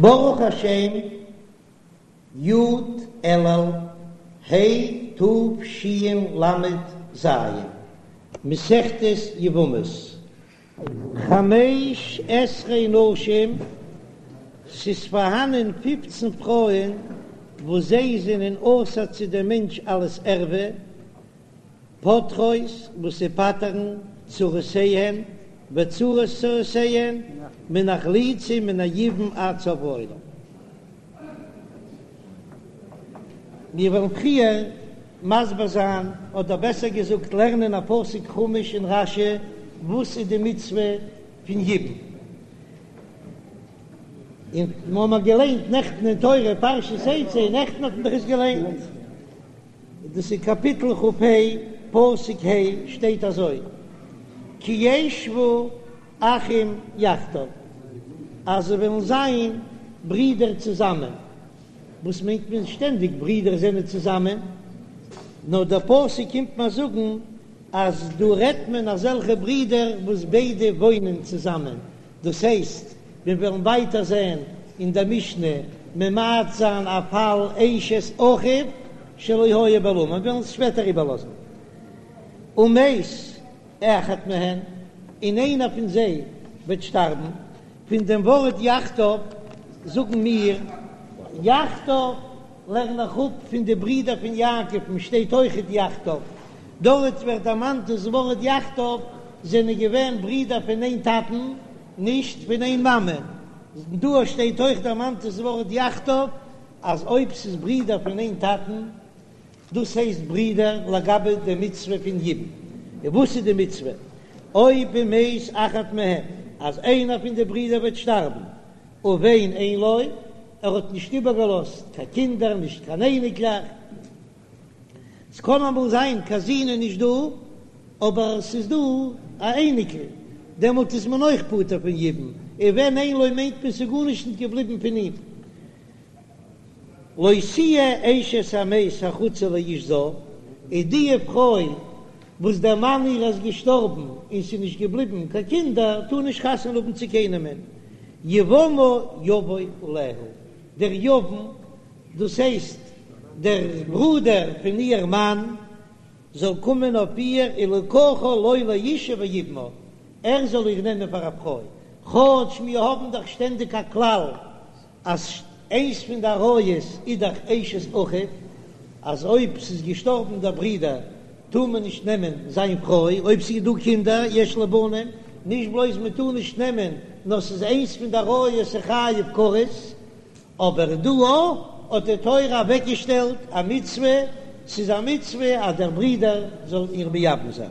ברוך השם, י' אלול ה' תשל"ז, מסכת יבמות, חמש עשרה נשים, ס'איז פארהאנען פופצן פרויען וואס זיי זענען אסור צו דעם מענטש אלס ערווה, פוטרות וואס זיי פטר'ן צרותיהן וצרות צרותיהן מן החליצה ומן היבום עד סוף העולם. מיר וועלן פריער מסביר זיין, אדער בעסער געזאגט לערנען א פסוק חומש און רש"י וואס איז די מצוה פון יבום. און מיר האבן געליינט נעכטן אין תורה פרשת תצא, נעכטן האט מען דאך עס געליינט. דאס איז קאפיטל כ"ה פסוק ה', שטייט אזוי, כי ישבו אחים יחדיו, אז זיי וועלן זיין ברידער צוזאמען, וואס מיינט מען שטענדיג ברידער זענען צוזאמען? נאר דער פסוק קומט מיר זאגן אז דא רעדט מען אזעלכע ברידער וואס ביידע וואוינען צוזאמען, דאס הייסט, מיר וועלן ווייטער זען אין דער משנה ממעט זיין א פאל אשת אחיו שלא היה בעולמו, מיר וועלן עס שפעטער איבערלאזן. ומת אחד מהן, און איינער פון זיי וועט שטארבן, פון דעם ווארט יחדיו זאגן מיר יחדיו לערן איך אפ פון די ברידער פון יעקב'ן שטייט אויכעט יחדיו, דארט ווערט דערמאנט דאס ווארט יחדיו זענען געווען ברידער פון איין טאטן נישט פון איין מאמע, דא שטייט אויך דערמאנט דאס ווארט יחדיו אז אויב ס'איז ברידער פון איין טאטן דאס הייסט ברידער לגבי די מצוה פון יבום, און וואס איז די מצוה אויב ומת אחד מהם אז איינער פון די ברידער וועט שטארבן ובן אין לו, ער האט נישט איבערגעלאזט קיין קינדער נישט קיין אייניקלעך, ס'קען אמאל זיין קיין זון איז נישט דא אבער ס'איז דא א אייניקל, דעמאלט איז מען אויך פטור פון יבום, ובן אין לו מיינט מען ס'איז גארנישט נישט געבליבן פון אים. לא תהיה אשת המת החוצה לאיש זר, איז די פרוי וואס דער מאן איר איז געשטארבן און ס'איז נישט געבליבן קיין קינדער, טאר נישט חתונה האבן צו קיינעמען, יבמה יבוא עליה, דער יבם, דאס הייסט דער ברודער פון איר מאן, זאל קומען אויף איר ולקחה לו לאשה ויבמה, ער זאל איר נעמען פאר א פרוי, כאטש מיר האבן דאך שטענדיג א כלל אז איינס פון די עריות איז דאך אשת אחיו, אז אויב ס'איז געשטארבן דער ברודער טאר מען נישט נעמען זיין פרוי, אויב ס'איז דא קינדער יש לו בנים, נישט בלויז מען טאר נישט נעמען, נאר ס'איז איינס פון די עריות חייב כרת, אבער דא האט די תורה אוועקגעשטעלט א מצוה, ס'איז א מצוה אז דער ברודער זאל איר מייבם זיין.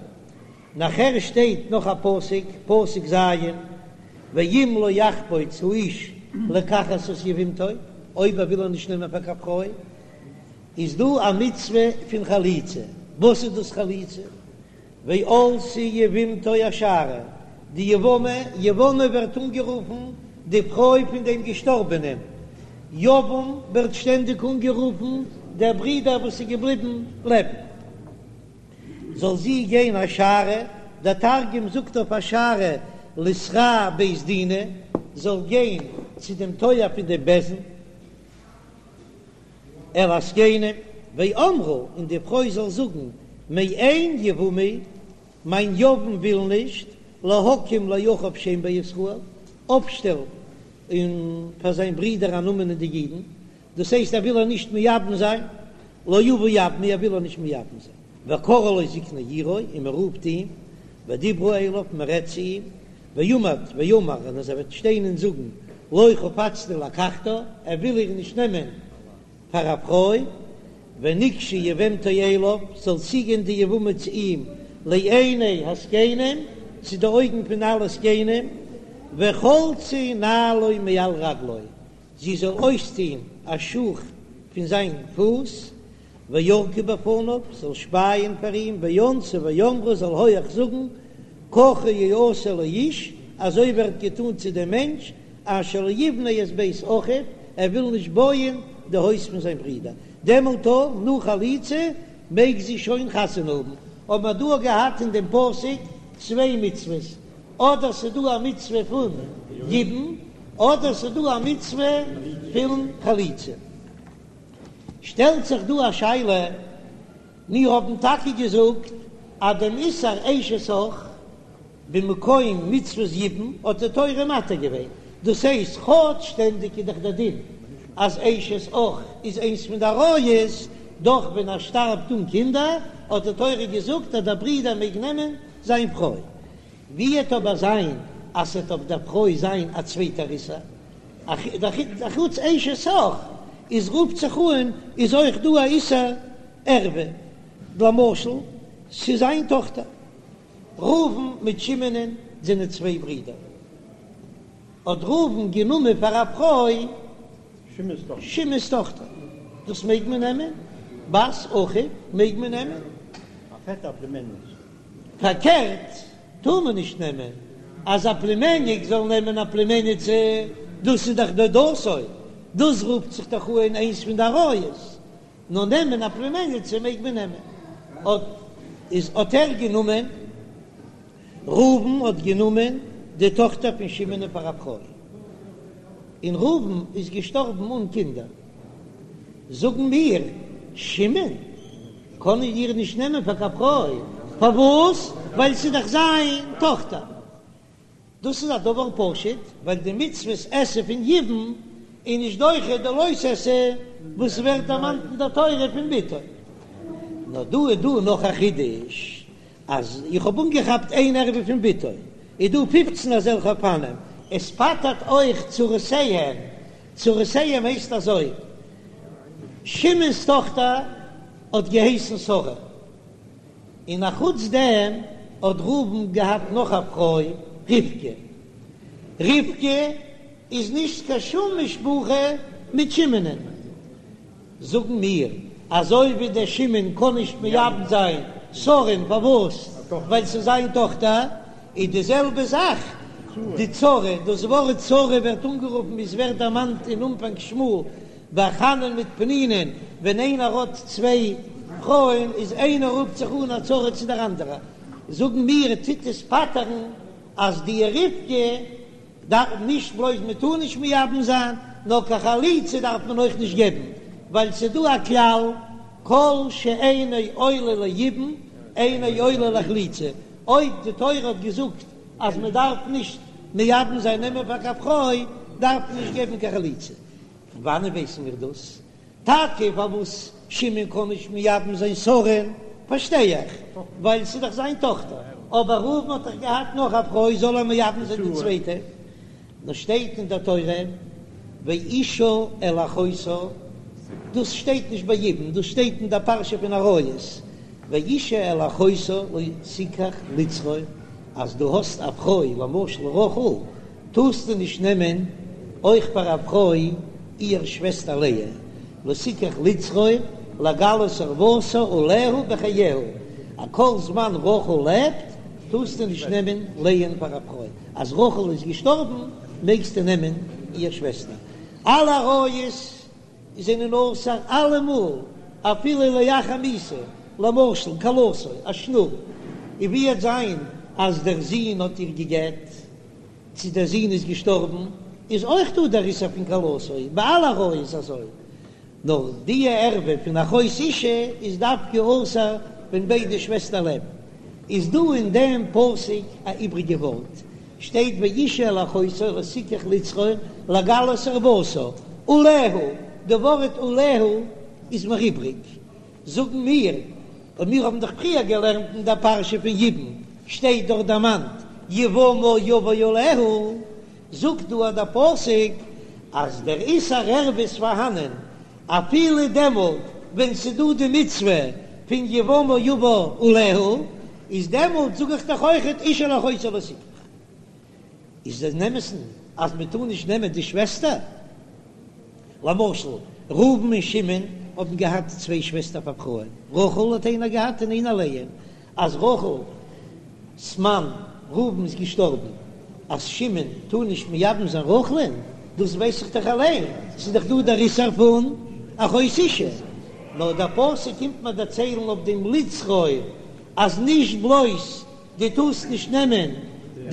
נאכער שטייט נאך א פסוק, פסוק ז', ואם לא יחפוץ האיש לקחת את יבמתו, אויב ער וויל איר נישט נעמען פאר קיין פרוי, איז דא א מצוה פון חליצה, וואס איז דאס חליצה? ועלתה יבמתו השערה, די יבמה, יבמה ווערט אנגערופן די פרוי פון דעם געשטארבענעם, יבם ווערט שטענדיג אנגערופן דער ברודער וואס איז געבליבן לעבן. זאל זי גיין השערה, דער תרגום זאגט אויף השערה לתרע בית דינא, זאל גיין צו דעם טויער פון דעם בית דין, אל הזקנים, ואמרה, און די פרוי זאל זאגן, מאן יבמי, מיין יבם וויל נישט, להקים לאחיו שם בישראל, אויפשטעלן און פאר זיין ברודער א נאמען אין די אידן, דאס הייסט ער וויל איר נישט מייבם זיין, לא אבה יבמי ער וויל איר נישט מייבם זיין, וקראו לו זקני עירו און מען רופט אים, ודיברו אליו מען רעדט צו אים, ועמד ואמר און אז ער וועט שטיין און זאגן לא חפצתי לקחתה ער וויל איר נישט נעמען פאר א פרוי, ונגשה יבמתו אליו זאל צוגיין די יבמה צו אים לעיני הזקנים צו די אויגן פון אלע זקנים, וחלצה נעלו מעל רגלו זי זאָל אויסטאָן אַ שוך פון זיין פוס, וירקה בפניו, זאָל שפּייען פאַר אים, וענתה ואמרה, זאָל הויך זאָגן, ככה יעשה לאיש, אַזוי ווערט געטאָן צו דעם מענטש, אשר לא יבנה את בית אחיו, ער וויל נישט בויען די הויז פון זיין ברודער. דעמאָלט אָ, נאָך חליצה, מעג זי שוין חתונה האָבן. האָבן מיר דאָ געהאַט אין דעם פּסוק צוויי מצוות, אדער ס'איז דא א מצוה פון יבום, אדער ס'איז דא א מצוה פון חליצה. שטעלט זיך דא א שאלה, מיר האבן טאקע געזאגט אז דעם איסור אשת אח במקום מצוות יבום האט די תורה מתיר געווען, דאס הייסט כאטש שטענדיג איז דאך דער דין אז אשת אח איז איינס פון די עריות, דאך ווען ער שטארבט אן קינדער האט די תורה געזאגט אז דער ברודער מעג נעמען זיין פרוי. ווי עט אבער זיין אז ס'עט אויף דער פרוי זיין א צווייטער איסור, אחוץ אשת אח איז רופט זיך אן איז אויך דא א איסור ערווה, למשל ס'איז זיין טאכטער. ראובן מיט שמעונ'ען זענען צוויי ברידער. האט ראובן גענומען פאר א פרוי שמעון'ס טאכטער. דאס מעג מען נעמען? בת אחיו מעג מען נעמען? פארקערט טאר מען נישט נעמען, אז א פלימעניק זאל נעמען א פלימעניצע, דאס איז דאך דודתו, דאס רופט זיך דאך אן איינס פון די עריות. נאר נעמען א פלימעניצע מעג מען נעמען, האט איז האט ער גענומען, ראובן האט גענומען די טאכטער פון שמעון פאר א פרוי, און ראובן איז געשטארבן אן קינדער, זאגן מיר, שמעון קען איר נישט נעמען פאר קיין פרוי, פארוואס? ווייל ס'איז דאך זיין טאכטער. דאס איז א דבר פשוט, ווייל די מצוות עשה פון יבום איז נישט דוחה די לא תעשה וואס ווערט דערמאנט אין דער תורה פון בתו. נאר דא איז דא נאך א חידוש, אז איך האב אנגעכאפט איין ערווה פון בתו, איז דא פופצן אזעלכע אופנים, עס פטר'ט אויך צרותיהן, צרותיהן הייסט אזוי, שמעון'ס טאכטער האט געהייסן שרה, און א חוץ דעם האט ראובן געהאט נאך א פרוי רבקה, רבקה איז נישט קיין שום משפחה מיט שמעונ'ען, זאגן מיר אזוי ווי דער שמעון קען נישט מייבם זיין שרה'ן פארוואס? ווייל ס'איז זיין טאכטער, איז די זעלבע זאך די צרה, דאס ווארט צרה ווערט אנגערופן ווי ס'ווערט דערמאנט אין אנפאנג שמואל ביי חנה'ן מיט פנינה'ן, ווען איינער האט צוויי פרויען איז איינער רופט זיך אן א צרה צו דער אנדערע, זאגן מיר טוט עס פטר'ן אז די רבקה דארף נישט בלויז מען טאר נישט מייבם זיין, נאר קיין חליצה דארף מען אויך נישט געבן, ווייל ס'איז דא א כלל כל שאינו עולה ליבום אינו עולה לחליצה, אויב די תורה האט געזאגט אז מען דארף נישט מייבם זיין נעמען פאר קיין פרוי, דארף מען נישט געבן קיין חליצה. פון וואנען ווייסן מיר דאס? טאקע פארוואס שמעון קען נישט מייבם זיין שרה'ן פארשטיי איך, ווייל ס'איז דאך זיין טאכטער, אבער ראובן האט דאך געהאט נאך א פרוי, זאל ער מייבם זיין די צווייטע? נאר שטייט אין דער תורה ואשה אל אחותה, דאס שטייט נישט ביי יבום, דאס שטייט אין דער פרשה פון עריות, ואשה אל אחותה לא תקח לצרור, אז דו האסט א פרוי למשל רחל, טארסטו נישט נעמען אויך פאר א פרוי איהר שוועסטער לאה, לא תקח לצרור לגלות ערותה עליה בחייה, א כל זמן רחל לעבט טארסטו נישט נעמען לאה'ן פאר א פרוי, אז רחל איז געשטארבן מעגסטו נעמען איהר שוועסטער. אלע עריות זענען אסור אלעמאל אפילו לאחר מיתה, למשל כלתו א שנור, און ווי עט זיין אז דער זון האט איר גע'גט, צו דער זון איז געשטארבן, איז אויך דא דער איסור פון כלתו, ביי אלע עריות איז אזוי, נאר די ערווה פון אחות אשה איז דווקא אסור ווען ביידע שוועסטער לעבן. איז דא אין דעם פסוק א איבריגע ווארט, שטייט ואשה אל אחותה לא תקח לצרור לגלות ערותה עליה, די ווארט עליה איז מיר איבריג, זאגן מיר, און מיר האבן דאך פריער געלערנט אין דער פרשה פון יבום, שטייט דארט דערמאנט יבמה יבא עליה, זאגט דא דער פסוק אז דער איסור ערווה איז פארהאנען אפילו דעמאלט ווען ס'איז דא די מצוה פון יבמה יבא עליה, איז דעמאלט זאג איך דאך אויכעט אשה אל אחותה לא תקח. איז אין אמת'ן אז מען טאר נישט נעמען די שוועסטער? למשל, ראובן און שמעון האבן געהאט צוויי שוועסטער פאר פרויען, רחל האט איינער געהאט און איינער לאה, אז רחל'ס מאן ראובן איז געשטארבן, אז שמעון טאר נישט מייבם זיין רחל'ן, דאס ווייס איך דאך אליין, ס'איז דאך דא דער איסור פון אחות אשה, נאר דער פסוק קומט מיר דערציילן אויף דעם לצרור אז נישט בלויז דו טארסט נישט נעמען.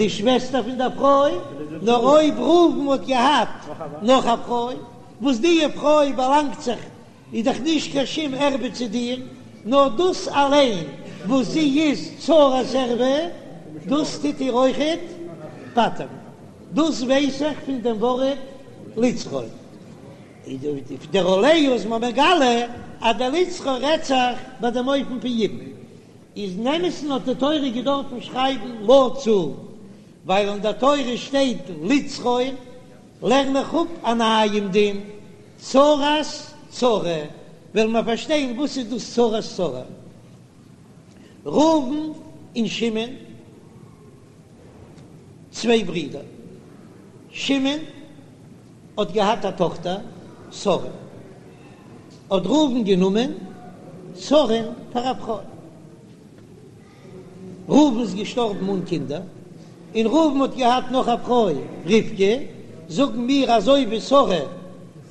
די שוועסטער פון דער פרוי, נאר אויב ראובן האט געהאט נאך א פרוי, וואס די פרוי באלאנגט זיך, איז דאך נישט קיין שום ערווה צו דיר, נאר דאס אליין וואס זי איז צרת ערווה, דאס טוט איר אויכעט פטר'ן. דאס ווייס איך פון דעם ווארט לצרור. דער עליה איז מיר מגלה אז דער לצרור רעדט זיך ביי דעם אופן פון יבום. איז אין אמת'ן האט די תורה געדארפן שרייבן לצור, ווייל אין דער תורה שטייט לצרור, לערן איך אפ א נייעם דין, צרת צרה, וועלן מיר פארשטיין וואס איז דאס צרת צרה. ראובן און שמעון, צוויי ברידער, שמעון האט געהאט א טאכטער שרה, האט ראובן גענומען שרה'ן פאר א פרוי. ראובן איז געשטארבן אן קינדער, און ראובן האט געהאט נאך א פרוי רבקה, זאגן מיר אזוי ווי שרה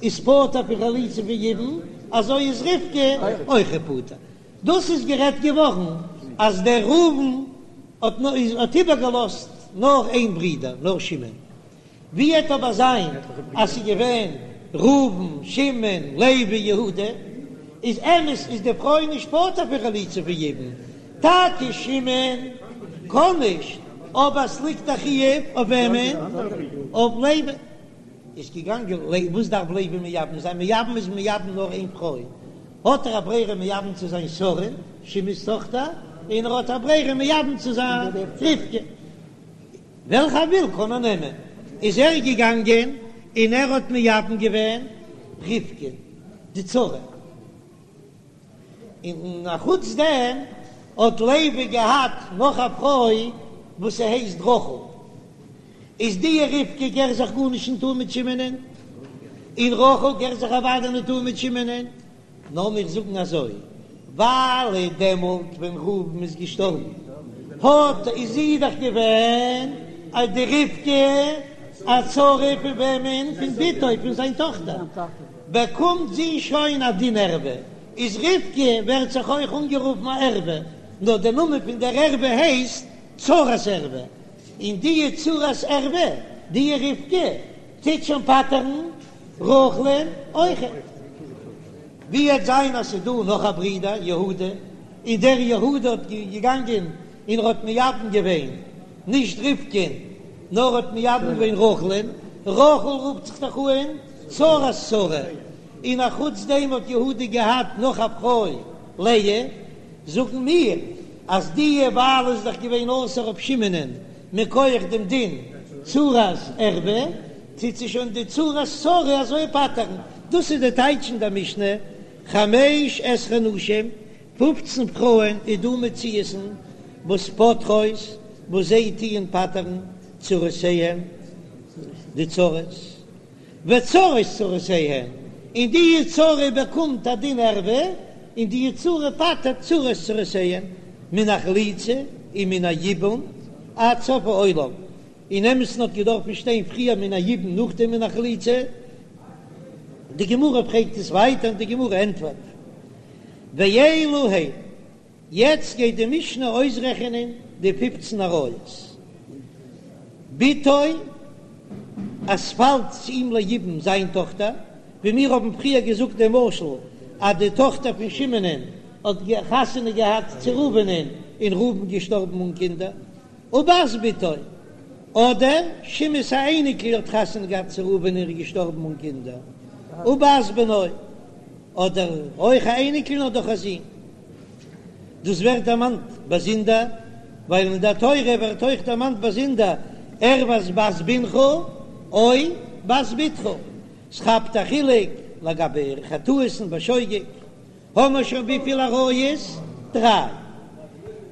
איז פטור פון חליצה פון יבום, אזוי איז רבקה אויך פטור. דאס איז גערעדט געווארן אז דער ראובן האט איבערגעלאזט נאר איין ברודער, נאר שמעון. ווי עט אבער זיין אז ס'איז געווען ראובן, שמעון, לוי, יהודה, איז אמת איז די פרוי נישט פטור פון חליצה פון יבום, טאקע שמעון קען נישט, אבער ס'ליגט א חיוב אויף וועמען? אויף לוי. איז געגאנגען לוי, וואס דארף לוי מייבם זיין? מייבם איז מייבם נאר איין פרוי, האט ער א ברירה מייבם צו זיין שרה, שמעון'ס טאכטער, און ער האט א ברירה מייבם צו זיין רבקה. וועלכע ער וויל קען ער נעמען, איז ער געגאנגען און ער האט מייבם געווען רבקה די צרה, און אחוץ דעם האט לוי געהאט נאך א פרוי וואס ס'הייסט רחל, איז די רבקה געהער זיך גארנישט נישט אן מיט שמעונ'ען, און רחל געהער זיך אוודאי נישט אן מיט שמעונ'ען, נאר מיר זאגן אזוי, ווייל דעמאלט ווען ראובן איז געשטארבן האט איז זי דאך געווען א די רבקה א צרה פון וועמען? פון בתו, פון זיין טאכטער, באקומט זי שוין א דין ערווה, איז רבקה ווערט זיך אויך אנגערופן א ערווה, נאר דער נאמען פון דער ערווה הייסט צרת ערווה, און די צרת ערווה, די רבקה, טוט שוין פטר'ן רחל'ן אויכעט. ווי עט זיין אז ס'איז דא נאך א ברודער יהודה, און דער יהודה האט געגאנגען און ער האט מייבם געווען נישט רבקה'ן נאר האט מייבם געווען רחל'ן, רחל רופט זיך דאך אן צרת צרה, און א חוץ דעם האט יהודה געהאט נאך א פרוי לאה, זאגן מיר אז די ווייל איז דאך געווען אסור אויף שמעונ'ען מכח דעם דין צרת ערווה, טוט זי שוין די צרת צרה אזוי פטר'ן. דאס איז די טייטש אין דער משנה, חמש עשרה נשים, פופצן פרויען איז דא מציאות'ן וואס פוטרות, וואס זיי טוען פטר'ן צרותיהן, די צרות. וצרות צרותיהן, און די צרה באקומט א דין ערווה, און די צרה פטר'ט צרות צרותיהן, מן החליצה און מן היבום עד סוף העולם, אין אמת'ן האט געדארפן שטיין פריער מן היבום נאכדעם מן החליצה, די גמרא פרעגט עס ווייטער און די גמרא ענטפערט ואלו הן. יעצט גייט די משנה אויסרעכענען די פופצן עריות. בתו, אז ס'פאלט צו אים ליבום זיין טאכטער, ווי מיר האבן פריער געזאגט דעם משל אז די טאכטער פון שמעונ'ען האט חתונה געהאט צו ראובנ'ען און ראובן געשטארבן אן קינדער, ובת בתו, אדער שמעון'ס א אייניקל האט חתונה געהאט צו ראובן און איז געשטארבן אן קינדער, ובת בנו, אדער אויך א אייניקל נאר דורך א זון. דאס ווערט דערמאנט באזונדער, ווייל אין דער תורה ווערט אויך דערמאנט באזונדער ערות בת בנך או בת בתך, ס'כאפט א חילוק לגבי חטאות'ן בשוגג, האמער שוין וויפיל עריות? דריי.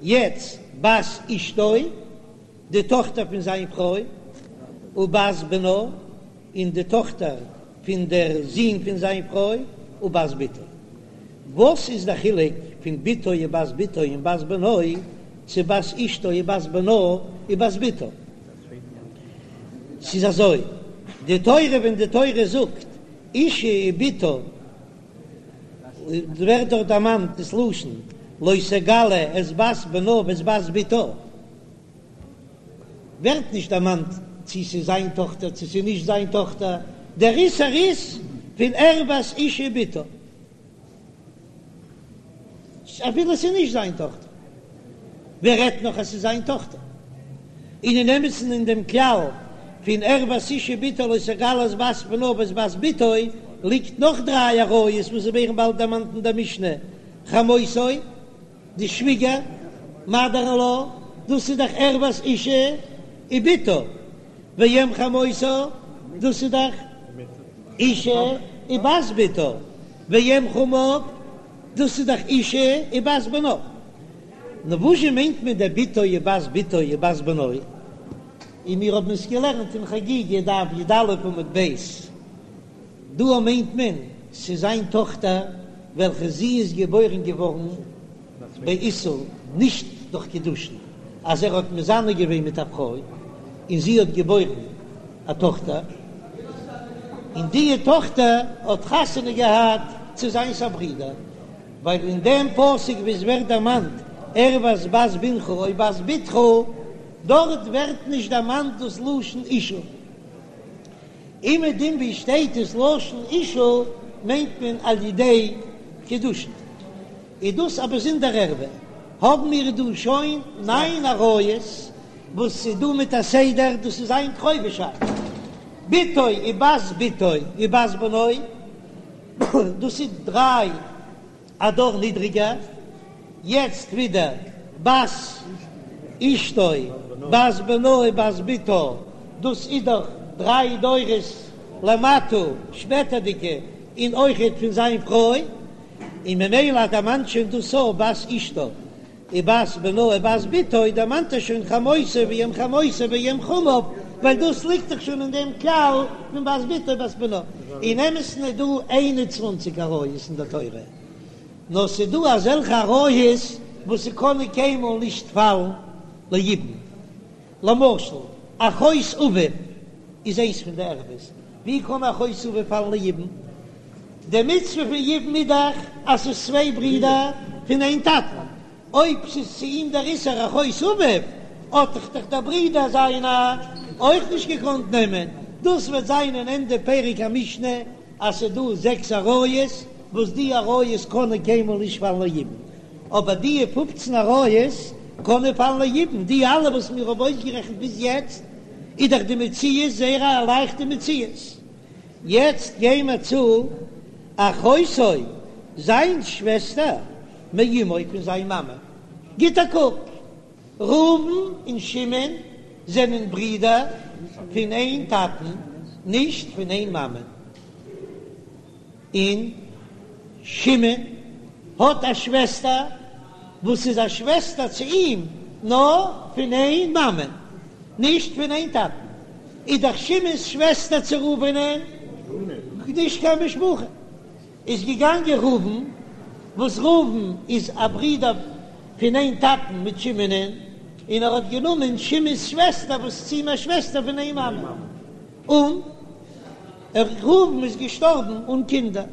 יעצט בת אשתו, די טאכטער פון זיין פרוי, ובת בנה, און די טאכטער פון דער זון פון זיין פרוי, ובת בתו. וואס איז דער חילוק פון בתו ובת בתו און בת בנו צו בת אשתו ובת בנה ובת בתו? ס'איז אזוי, די תורה ווען די תורה זאגט אשה ובתה ווערט דארט דערמאנט דאס לשון לא תגלה את בת בנה ואת בת בתה. ווערט נישט דערמאנט צו ס'איז זיין טאכטער צו ס'איז נישט זיין טאכטער, דער איסור איז פון ערות אשה ובתה. אפילו ס'איז נישט זיין טאכטער, ווער רעדט נאך אז ס'איז זיין טאכטער? און אין אמת'ן אין דעם כלל פון ערות אשה ובתה לא תגלה את בת בנה ואת בת בתו ליגט נאך דריי עריות וואס ווערן באלד דערמאנט אין דער משנה, חמותו, די שוויגער, מאדער אין לאו, דאס איז דאך ערות אשה ובתה, ואם חמותה, דאס איז דאך אשה ובת בתה, ואם חמיו, דאס איז דאך אשה ובת בנה. נו וואזשע מיינט מען דער בתו ובת בתו ובת בנו? און מיר האבן עס געלערנט אין חגיגה דף י"א עמוד ב', דא מיינט מען ס'איז זיין טאכטער וועלכע זי איז געבוירן געווארן באיסור, נישט דורך קידושין, אז ער האט מזנה געווען מיט א פרוי און זי האט געבוירן א טאכטער, און די טאכטער האט חתונה געהאט צו זיינס א ברודער, ווייל אין דעם פסוק וואו עס ווערט דערמאנט ערות בת בנך או בת בתך, דארט ווערט נישט דערמאנט דאס לשון אשה. אומעדום וואו שטייט דאס לשון אשה מיינט מען על ידי קידושין. איז דאס א באזונדער ערווה? האבן מיר דא שוין ניין עריות וואס איז דא מיט א סדר, דאס איז איין קרובישאפט, בתו ובת בתו ובת בנו, דאס איז דריי א דור נידריגער, יעצט ווידער בת אשתו בת בנה ובת בתה, דאס איז דאך דריי דורות למטה שפעטערדיגע, און אויכעט פון זיין פרוי. און ממילא דערמאנט שוין דאס א בת אשתו ובת בנה ובת בתו, דערמאנט ער שוין חמותו ואם חמותו ואם חמיו, ווייל דאס ליגט דאך שוין אין דעם כלל פון בת בתו ובת בנה. אין אמת'ן איז דא איין און צוואנציג עריות אין דער תורה, נאר ס'איז דא אזעלכע עריות וואס ס'קענען קיינמאל נישט פאלן ליבום, למשל, אחות אביו איז איינס פון די ערוות. ווי קען אחות אביו פאלן ליבום? די מצוה פון יבום איז דאך אז ס'איז צוויי ברידער פון איין טאטן. אויב ס'איז צו אים דער איסור אחות אביו, האט דאך דאך דער ברודער זיינער אויך נישט געקאנט נעמען. דאס וועט זיין אין ענדע פרק המשנה אז ס'איז דא זעקס עריות וואס די עריות קענען קיינמאל נישט פאלן ליבום. אבער די פופצן עריות קענען פאלן ליבום, די אלע וואס מיר האבן אויסגערעכנט ביז יעצט, איז דאך די מציאות זייער א לייכטע מציאות. יעצט גיי מיר צו אחותו, זיין שוועסטער, מאמו פון זיין מאמע. גיט א קוק, ראובן און שמעון זענען ברידער פון איין טאטן, נישט פון איין מאמע. און שמעון האט א שוועסטער וואס איז א שוועסטער צו אים נאר פון איין מאמע, נישט פון איין טאטן, איז דאך שמעון'ס שוועסטער צו ראובנ'ען נישט קיין משפחה, איז געגאנגען ראובן, וואס ראובן איז א ברודער פון איין טאטן מיט שמעונ'ען, און ער האט גענומען שמעון'ס שוועסטער וואס איז צו אים א שוועסטער פון איין מאמע, און. ראובן איז געשטארבן אן קינדער,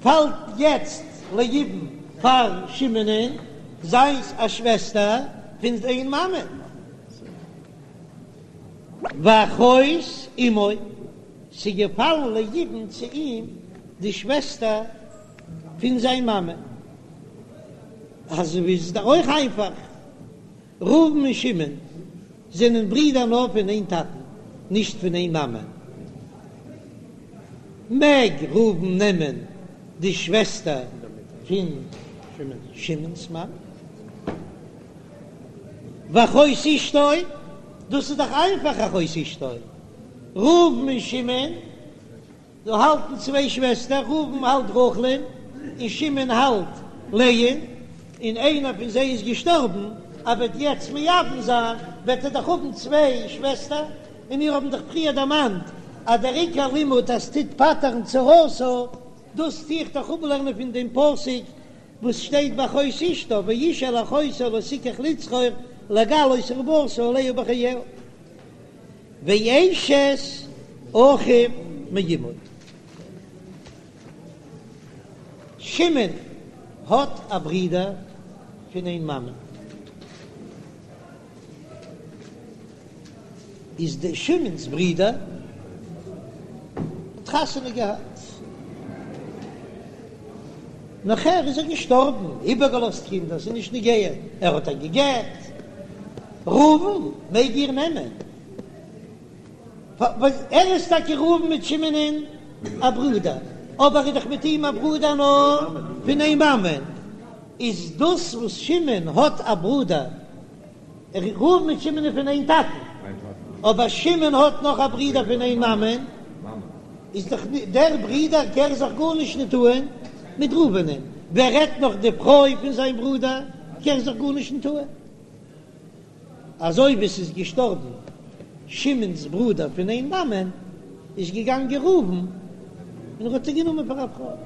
פאלט יעצט ליבום פאר שמעונ'ען זיינס א שוועסטער פון זיין מאמע, ואחות אמו, ס'איז געפאלן ליבום צו אים די שוועסטער פון זיין מאמע, אזוי איז דאך אויך איינפאך. ראובן און שמעון זענען ברידער נאר פון איין טאטן, נישט פון איין מאמע. מעג ראובן נעמען די שוועסטער פון שמעון'ס מאמע? ואחות אשתו, דאס איז דאך איינפאך אחות אשתו, ראובן און שמעון. דא האלטן צוויי שוועסטער, ראובן האלט רחל'ן און שמעון האלט לאה'ן, און איינער פון זיי איז געשטארבן, ער וועט יעצט מייבם זיין, וועט ער דאך האבן צוויי שוועסטער, און מיר האבן דאך פריער דערמאנט אז דער עיקר לימוד אז טוט פטר'ן צרתה, דאס טו איך דאך אפלערנען פון דעם פסוק וואס שטייט באחות אשתו, ואיש אל אחותו לא תקח לצרור לגלות ערותה עליה בחייה. ואשת אחיו מאמו. שמעון האט א ברודער פון איין מאמע. איז די שמעון'ס ברודער האט חתונה געהאט, נאכער איז ער געשטארבן, איבערגעלאזט קינדער, ס'איז נישט נוגע, ער האט איר גע'גט, ראובן מעג איר נעמען, ער איז טאקע ראובן מיט שמעון'ען א ברודער, אבער ער איז דאך מיט אים א ברודער נאר פון איין מאמען, איז דאס וואס שמעון האט א ברודער ראובן מיט שמעון איז פון איין טאטן, אבער שמעון האט נאך א ברודער פון איין מאמען, איז דאך דער ברודער קער זיך גארנישט ניט אהן מיט ראובנ'ען, ווער רעדט נאך די פרוי פון זיין ברודער קער זיך גארנישט ניט אהן. אזוי ווי ס'איז געשטארבן שמעון'ס ברודער פון איין מאמען, איז געגאנגען ראובן און ער האט איר גענומען פאר א פרוי.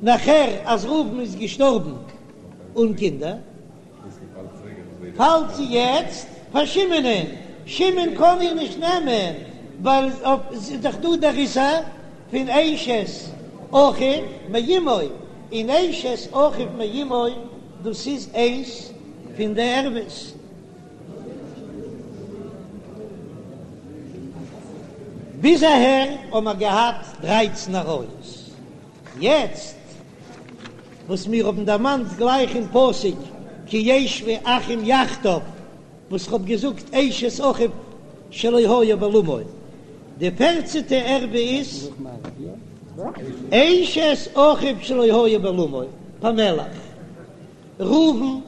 נאכער אז ראובן איז געשטארבן אן קינדער, פאלט זי יעצט פאר שמעונ'ען, שמעון קען איר נישט נעמען ווייל ס'איז דאך דא דער איסור פון אשת אחיו מאמו, און אשת אחיו מאמו דאס איז איינס פון די ערוות. ביז אהער האבן מיר געהאט דרייצן עריות, יעצט וואס מיר האבן דערמאנט גלייך אין פסוק כי ישבו אחים יחדיו, וואס כ'האב געזאגט אשת אחיו שלא היה בעולמו, די פערצענטע ערווה איז אשת אחיו שלא היה בעולמו, פאמעלעך, ראובן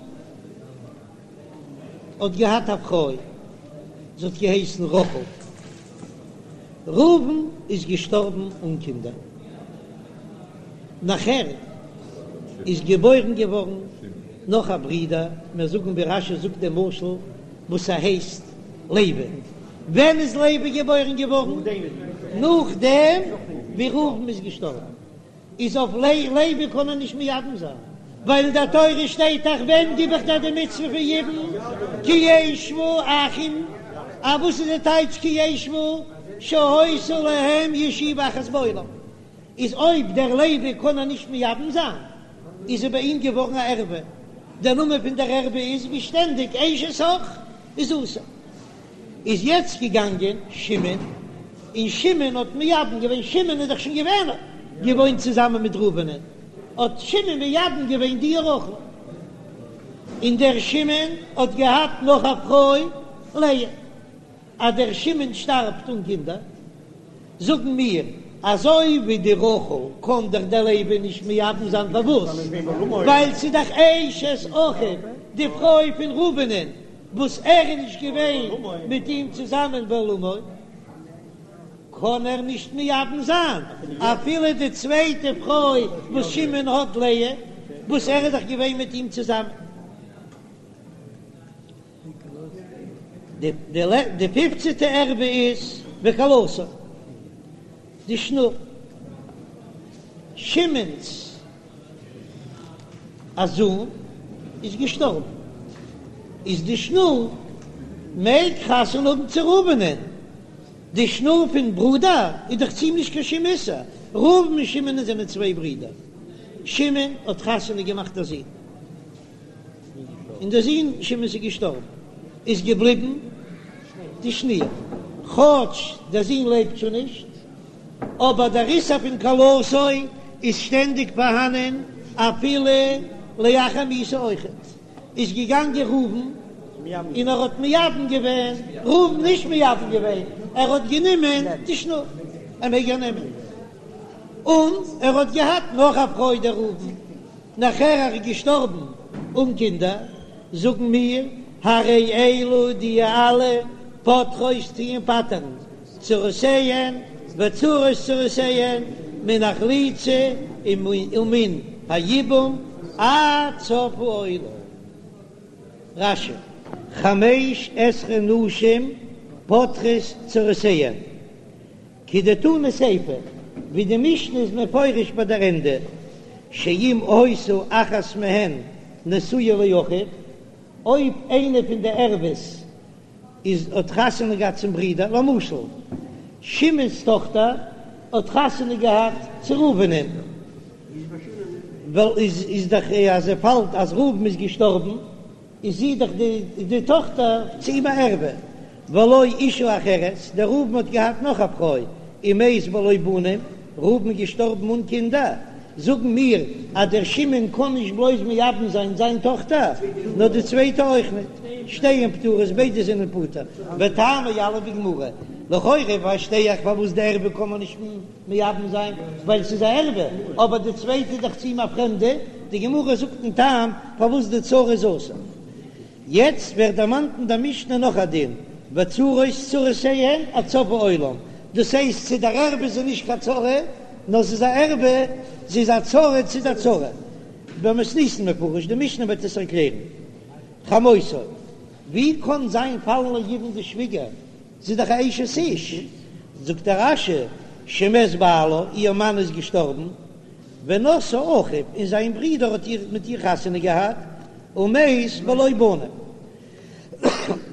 האט געהאט א פרוי, זי האט געהייסן רחל. ראובן איז געשטארבן אן קינדער. נאכער איז געבוירן געווארן נאך א ברודער, מיר זאגן ווי רש"י זאגט דעם משל וואס ער הייסט לוי. ווען איז לוי געבוירן געווארן? נאכדעם ווי ראובן איז געשטארבן. איז אויף לוי קען ער נישט מייבם זיין, ווייל אין דער תורה שטייט דאך ווען גיב איך דיר די מצוה פון יבום כי ישבו אחים, א וואס איז די טייטש כי ישבו שהיתה להם ישיבה אחת בעולם, איז אויב דער לוי קען ער נישט מייבם זיין איז זי ביי אים געווארן א ערווה, דער נאמען פון דער ערווה איז ווי שטענדיג אשת אח איז אסור. איז יעצט געגאנגען שמעון, און שמעון האט מייבם געווען, שמעון איז דאך שוין געווען געוואוינט צוזאמען מיט ראובנ'ען, האט שמעון מייבם געווען די רחל, און דער שמעון האט געהאט נאך א פרוי לאה, אז דער שמעון שטארבט אן קינדער, זאגן מיר, אזוי ווי די רחל קען דאך דער לוי נישט מייבם זיין פארוואס? ווייל ס'איז דאך אשת אחיו, די פרוי פון ראובנ'ען, וואס ער איז נישט געווען מיט אים צוזאמען בעולמו, קען ער נישט מייבם זיין אפילו די צווייטע פרוי וואס שמעון האט לאה, וואס ער איז דאך געווען מיט אים צוזאמען. די פיפצעטע ערווה איז וכלתו, די שנור, שמעון'ס א זון איז געשטארבן, איז די שנור מעג חתונה האבן צו ראובנ'ען, די שנור פון ברודער איז דאך צו אים נישט קיין שום איסור, ראובן און שמעון זענען צוויי ברידער, שמעון האט חתונה געמאכט א זון, און דער זון שמעון'ס איז געשטארבן, איז געבליבן די שנור, כאטש דער זון לעבט שוין נישט. אבער דער איסור פון כלתו איז שטענדיג פארהאנען אפילו לאחר מיתה אויכעט. איז געגאנגען ראובן און ער האט מייבם געווען, ראובן נישט מייבם געווען, ער האט גענומען די שנור, ער מעג איר נעמען, און ער האט געהאט נאך א פרוי דער ראובן, נאכער ער איז געשטארבן אן קינדער, זאגן מיר, הרי אלו די אלע פוטרות טוען פטר'ן צרותיהן וצרות צרותיהן מן החליצה ומן היבום עד סוף העולם. רש"י, חמש עשרה נשים פוטרות צרותיהן, כדתנא סיפא, ווי די משנה איז מפורש ביי דער ענדע, שאם היתה אחת מהן נשואה לאחיו, אויב איינע פון די ערוות איז האט חתונה געהאט צום ברודער, למשל שמעון'ס טאכטער האט חתונה געהאט צו ראובנ'ען, ווייל איז איז דאך אז ער פאלט אז ראובן איז געשטארבן איז זי דאך די די טאכטער צו אים א ערווה. ולו אישה אחרת, דער ראובן האט געהאט נאך א פרוי, ומת בלא בנים, ראובן איז געשטארבן אן קינדער, זאגן מיר אז דער שמעון קען נישט בלויז מייבם זיין זיין טאכטער, נאר די צווייטע אויך ניט, שתיהן פטורות, ביידע זענען פטור, וטעמא יליף בגמרא, לכאורה פארשטיי איך פארוואס די ערווה קען מען נישט מייבם זיין, ווייל ס'איז א ערווה, אבער די צווייטע איז דאך צו אים א פרעמדע, די גמרא זאגט דעם טעם פארוואס די צרה איז אסור. יעצט ווערט דערמאנט אין דער משנה נאך א דין, וצרות צרותיהן עד סוף העולם, דאס הייסט צו דער ערווה איז זי נישט קיין צרה, נאר זי איז א ערווה, זי איז א צרה צו דער צרה. במתניתין מפרש, די משנה וועט עס ערקלערן. חמותו, ווי קען זיין פאלן ליבום די שוויגער, זי איז דאך א אשת איש, זאגט דער רש"י, שמת בעלה, איר מאן איז געשטארבן, ונשאה אחיו, און זיין ברודער האט איר מיט איר חתונה געהאט, ומת בלא בנים.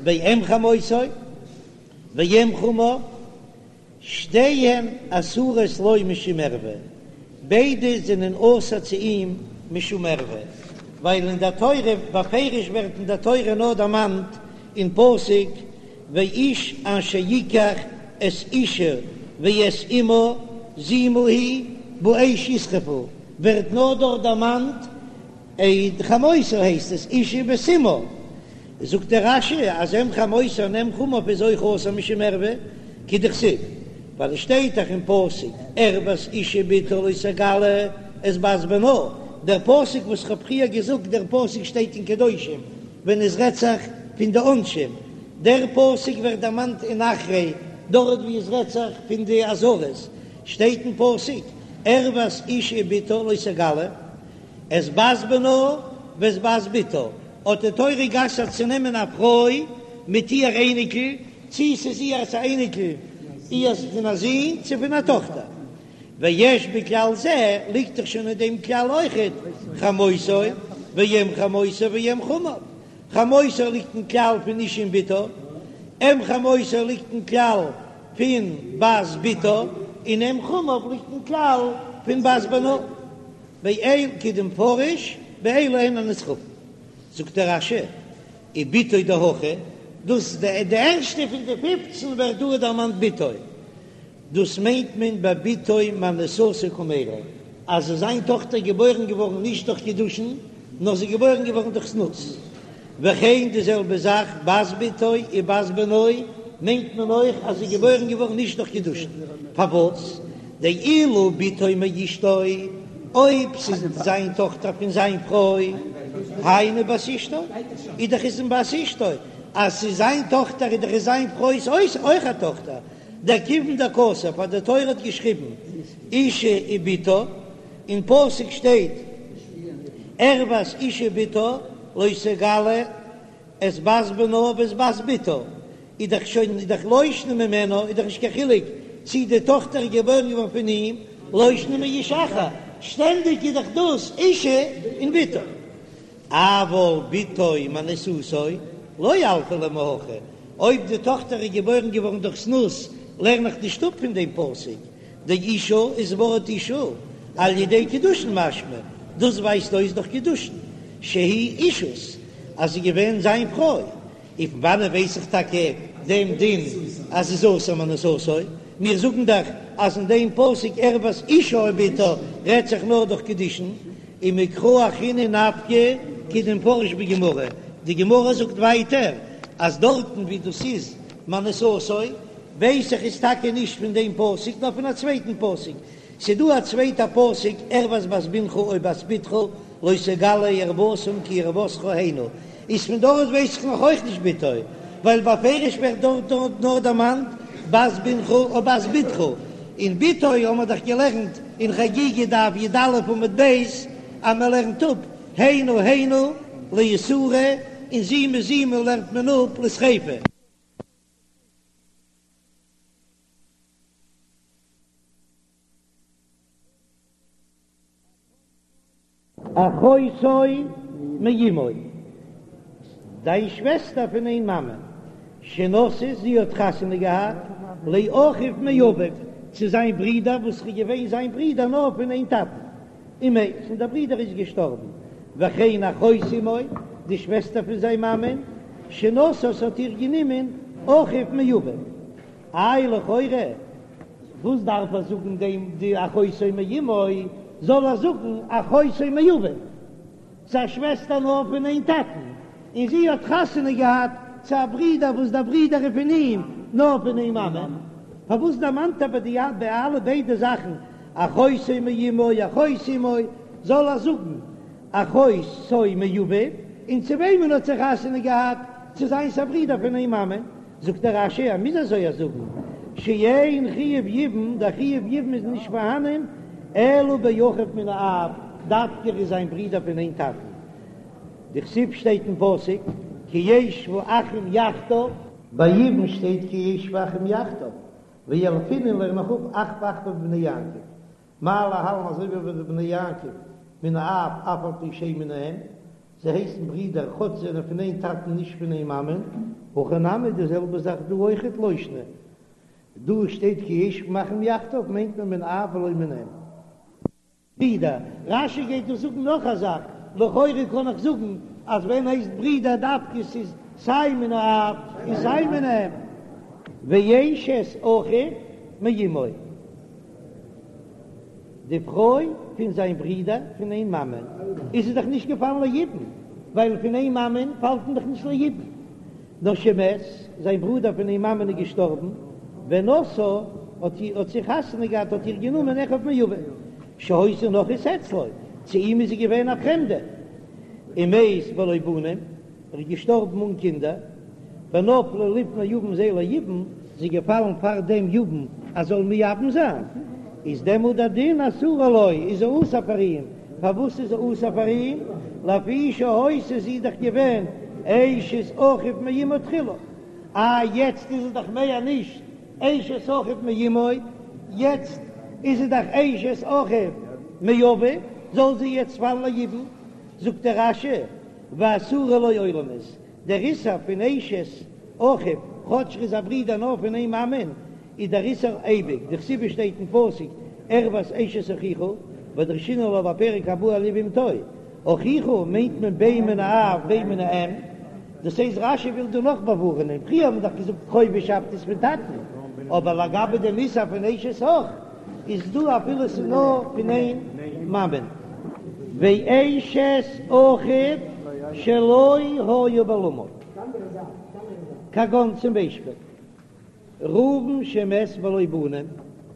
ואם חמותו ואם חמיו, שתיהן אסורות לו משום ערווה, ביידע זענען אסור צו אים משום ערווה, ווייל אין דער תורה, בפירוש ווערט אין דער תורה נאר דערמאנט אין פסוק ואיש אשר יקח את אשה ואת אמה זימה היא באש ישרפו, ווערט נאר דארט דערמאנט עה חמותו הייסט עס אשה ואת אמה, זאגט דער רש"י אז אם חמותו און אם חמיו איז אויך אסור משום ערווה, כדכתיב, ווייל עס שטייט דאך אין פסוק ערות אשה ובתה לא תגלה את בת בנה, דער פסוק וואס כ'האב פריער געזאגט דער פסוק שטייט אין קדושים ווען עס רעדט זיך פון די עונשים, דער פסוק ווערט דערמאנט אין אחרי דארט ווי עס רעדט זיך פון די אזהרות, שטייט אין פסוק ערות אשה ובתה לא תגלה את בת בנה ואת בת בתה, האט די תורה גע'אסר'ט צו נעמען א פרוי מיט איהר אייניקל, צי ס'איז איהר'ס א אייניקל איהר'ס פון א זון צו פון א טאכטער. ויש בכלל זה, ליגט דאך שוין אין דעם כלל אויכעט, חמותו ואם חמותו ואם חמיו. חמותו ליגט אין כלל פון אשה און בתה, אם חמותו ליגט אין כלל פון בת בתה, און אם חמיו ליגט אין כלל פון בת בנה. באל כדמפרש באלו הן הנשרפין. זאגט דער רש"י, ובתו דהכא, דאס די ערשטע פון די פופצן ווערט דא דערמאנט בתו. דאס מיינט מען בבתו מאנוסתו קמיירי, אז איז זיין טאכטער געבוירן געווארן נישט דורך קידושין, נאר זי איז געבוירן געווארן דורך זנות. וכן די זעלבע זאך בת בתו ובת בנו, מיינט מען אויך אז זי איז געבוירן געווארן נישט דורך קידושין. פארוואס? דאילו בתו מאשתו, אויב ס'איז זיין טאכטער פון זיין פרוי, היינו בת אשתו, איז דאך איז בת אשתו, אז ס'איז זיין טאכטער איז דאך איז זיין פרוי'ס אויך א טאכטער, דכיון דכתב אז די תורה האט געשריבן אשה ובתה, אין פסוק שטייט ערות אשה ובתה לא תגלה את בת בנה ואת בת בתה, איז דאך שוין איז דאך לא שנא ממנה, איז דאך נישט קיין חילוק צי די טאכטער איז געבוירן געווארן פון אים, לא שנא מאיש אחר, שטענדיג איז דאך דאס אשה און בתה. אבל בתו מאנוסתו לא ילפא ליה מהכא, אויב די טאכטער איז געבוירן געווארן דורך זנות, לערן איך נישט אפ פון דעם פסוק, דאשה איז ווארט אשה על ידי קידושין משמע, דאס ווייזט אויס דורך קידושין שהיא אישות אז זי איז געווען זיין פרוי, און פון וואנען ווייס איך טאקע דעם דין אז ס'איז אסור מאנוסתו? מיר זאגן דאך אז אין דעם פסוק ערות אשה ובתה רעדט זיך נאר דורך קידושין, ומקרא אחרינא נפקא כדמפרש בגמרא, די גמרא זאגט ווייטער אז דארטן ווי דאס איז מאנוסתו ווייס איך איז טאקע נישט פון דעם פסוק נאר פון א צווייטן פסוק, ס'דא א צווייטע פסוק ערות בת בנך או בת בתך לא תגלה ערותם כי ערותך הנה, איז פון דארט ווייס איך נאך אויך נישט בתו, ווייל בפירוש ווערט דארט נאר דערמאנט בת בנך או בת בתך, און בתו האבן מיר דאך געלערנט אין חגיגה דף י"א עמוד ב' אז מען לערנט אפ הנה הנה לאיסורא און זימה זימה לערנט מען אפ לשריפה. אחותו מאמו, דיין שוועסטער פון איין מאמע, שנשאת, זי האט חתונה געהאט, לאחיו מאביו, צו זיין ברודער וואס איז געווען זיין ברודער נאר פון איין טאטן, ומת, און דער ברודער איז געשטארבן, וכן אחות אמו, די שוועסטער פון זיין מאמען, שנשאת האט איר גענומען. אחיו מאביו. איי לכאורה וואס דארף ער זאגן דעם די אחותו מאמו, זאל ער זאגן אחותו מאביו, ס'איז א שוועסטער נאר פון איין טאטן, און זי האט חתונה געהאט צו א ברודער וואס דער ברודער איז פון אים נאר פון איין מאמע, פארוואס דערמאנט ער ביי די ביי אלע ביידע זאכן אחותו מאמו אחות אמו, זאל ער זאגן אחותו מאביו, און צו וועמען האט זי חתונה געהאט, צו זיינס א ברודער פון איין מאמע, זאגט דער רש"י ער מוז אזוי זאגן, שאין חיוב יבום, דער חיוב יבום איז נישט פארהאנען, אלא באחיו מן האב, דווקא ער איז זיין ברודער פון איין טאטן, דכתיב שטייט אין פסוק כי ישבו אחים יחדיו. ביי יבום שטייט כי ישבו אחים יחדיו, וילפינן לערן איך אפ אחוה אחוה בבני יעקב, מה להלן אזוי ווי ביי די בני יעקב מן האב אף על פי שאין מן האם, זיי הייסן ברידער כאטש זיי זענען פון איין טאטן נישט פון איין מאמען, הכא נמי די זעלבע זאך דא אויכעט לא שנא, דא שטייט כי ישבו אחים יחדיו מיינט מען מן האב ולא מן האם. ברידער, רש"י גייט דא זאגן נאך א זאך, לכאורה קען איך זאגן אז ווען הייסט ברידער דווקא ס'איז סיי מן האב און סיי מן האם. ואשת אחיו מאמו. די פרוי פון זיין ברודער פון איין מאמען, איז זי דאך נישט געפאלן ליבום, ווייל פון איין מאמען פאלט מען דאך נישט ליבום. נאר שמת, זיין ברודער פון איין מאמען איז געשטארבן, ונשאה, האט איר, האט זי חתונה געהאט, האט איר גענומען אחיו מאביו, שהיתה נכרית אצלו, צו אים איז זי געווען א פרעמדע, ומת בלא בנים, ער איז געשטארבן אן קינדער, ונפלה לפני יבם זה ליבום, זי איז געפאלן פאר דעם יבם אז זאל מייבם זיין, איז דעמאלט דער דין אסורה לו, איז זי אסור פאר אים, פארוואס איז זי אסור פאר אים? לפי שהיתה זי איז דאך געווען אשת אחיו מאמו תחילה, אה יעצט איז זי דאך מער נישט אשת אחיו מאמו, יעצט איז זי דאך אשת אחיו מאביו, זאל זי יעצט פאלן ליבום, זאגט דער רש"י, ואסורה לו עולמית, דער איסור פון אשת אחיו, כאטש ר'איז א ברודער נאר פון איין מאמען, איז דער איסור אייביג, דכתיב שטייט אין פסוק ערות אשת אחיך, ודרשינן לה בפרק הבא על יבמתו, אחיך מיינט מען בין מן האב בין מן האם, דאס הייסט רש"י וויל דא נאך באווארענען, פריער האט מען דאך געזאגט קרובישאפט איז פון טאטן, אבער לגבי דעם איסור פון אשת אח, איז דא אפילו ס'איז נאר פון איין מאמען. ואשת אחיו שלא היה בעולמו, כגון צום ביישפיל ראובן שמת בלא בנים,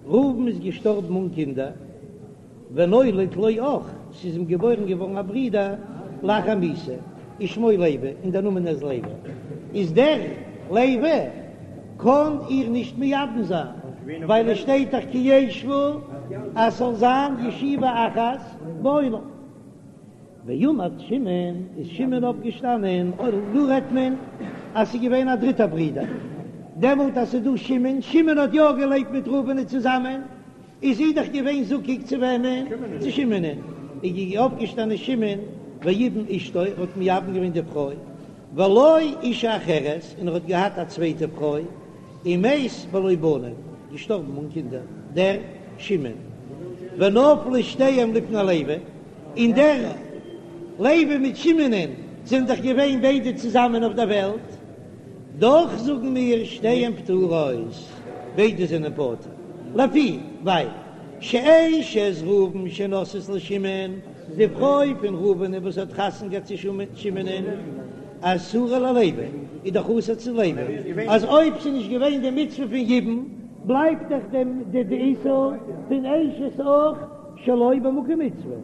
ראובן איז געשטארבן אן קינדער, ונולד לו אח, ס'איז אים געבוירן געווארן א ברודער לאחר מיתה, ושמו לוי, און דער נאמען איז לוי, איז דער לוי קען איר נישט מייבם זיין, ווייל עס שטייט דאך כי ישבו אז ס'זאל זיין ישיבה אחת בעולם. ועמד שמעון, איז שמעון אויפגעשטאנען, דא רעדט מען אז ס'איז געווען א דריטער ברודער, דעמאלט אז ס'איז דא שמעון, שמעון האט יא געלעבט מיט ראובן'ען צוזאמען, איז זי דאך געווען זקוק צו וועמען? צו שמעונ'ען. איז אויפגעשטאנען שמעון ויבם אשתו, ער האט מייבם געווען די פרוי, ולו אשה אחרת, און ער האט געהאט א צווייטע פרוי, ומת בלא בנים, געשטארבן אן קינדער, דער שמעון. ונפלו שתיהם לפני לוי, און דער לוי מיט שמעונ'ען זענען דאך געווען ביידע צוזאמען אויף דער וועלט, דאך זאגן מיר שתיהן פטורות, ביידע זענען פטור, לפי ווייל שאשת ראובן שנשאת לשמעון, די פרוי פון ראובן וואס האט חתונה געהאט צו שמעונ'ען, אסורה ללוי, איז דאך אסור צו לוי, אז אויב ס'איז נישט געווען די מצוה פון יבום, בלייבט דאך די איסור פון אשת אח שלא במקום מצוה.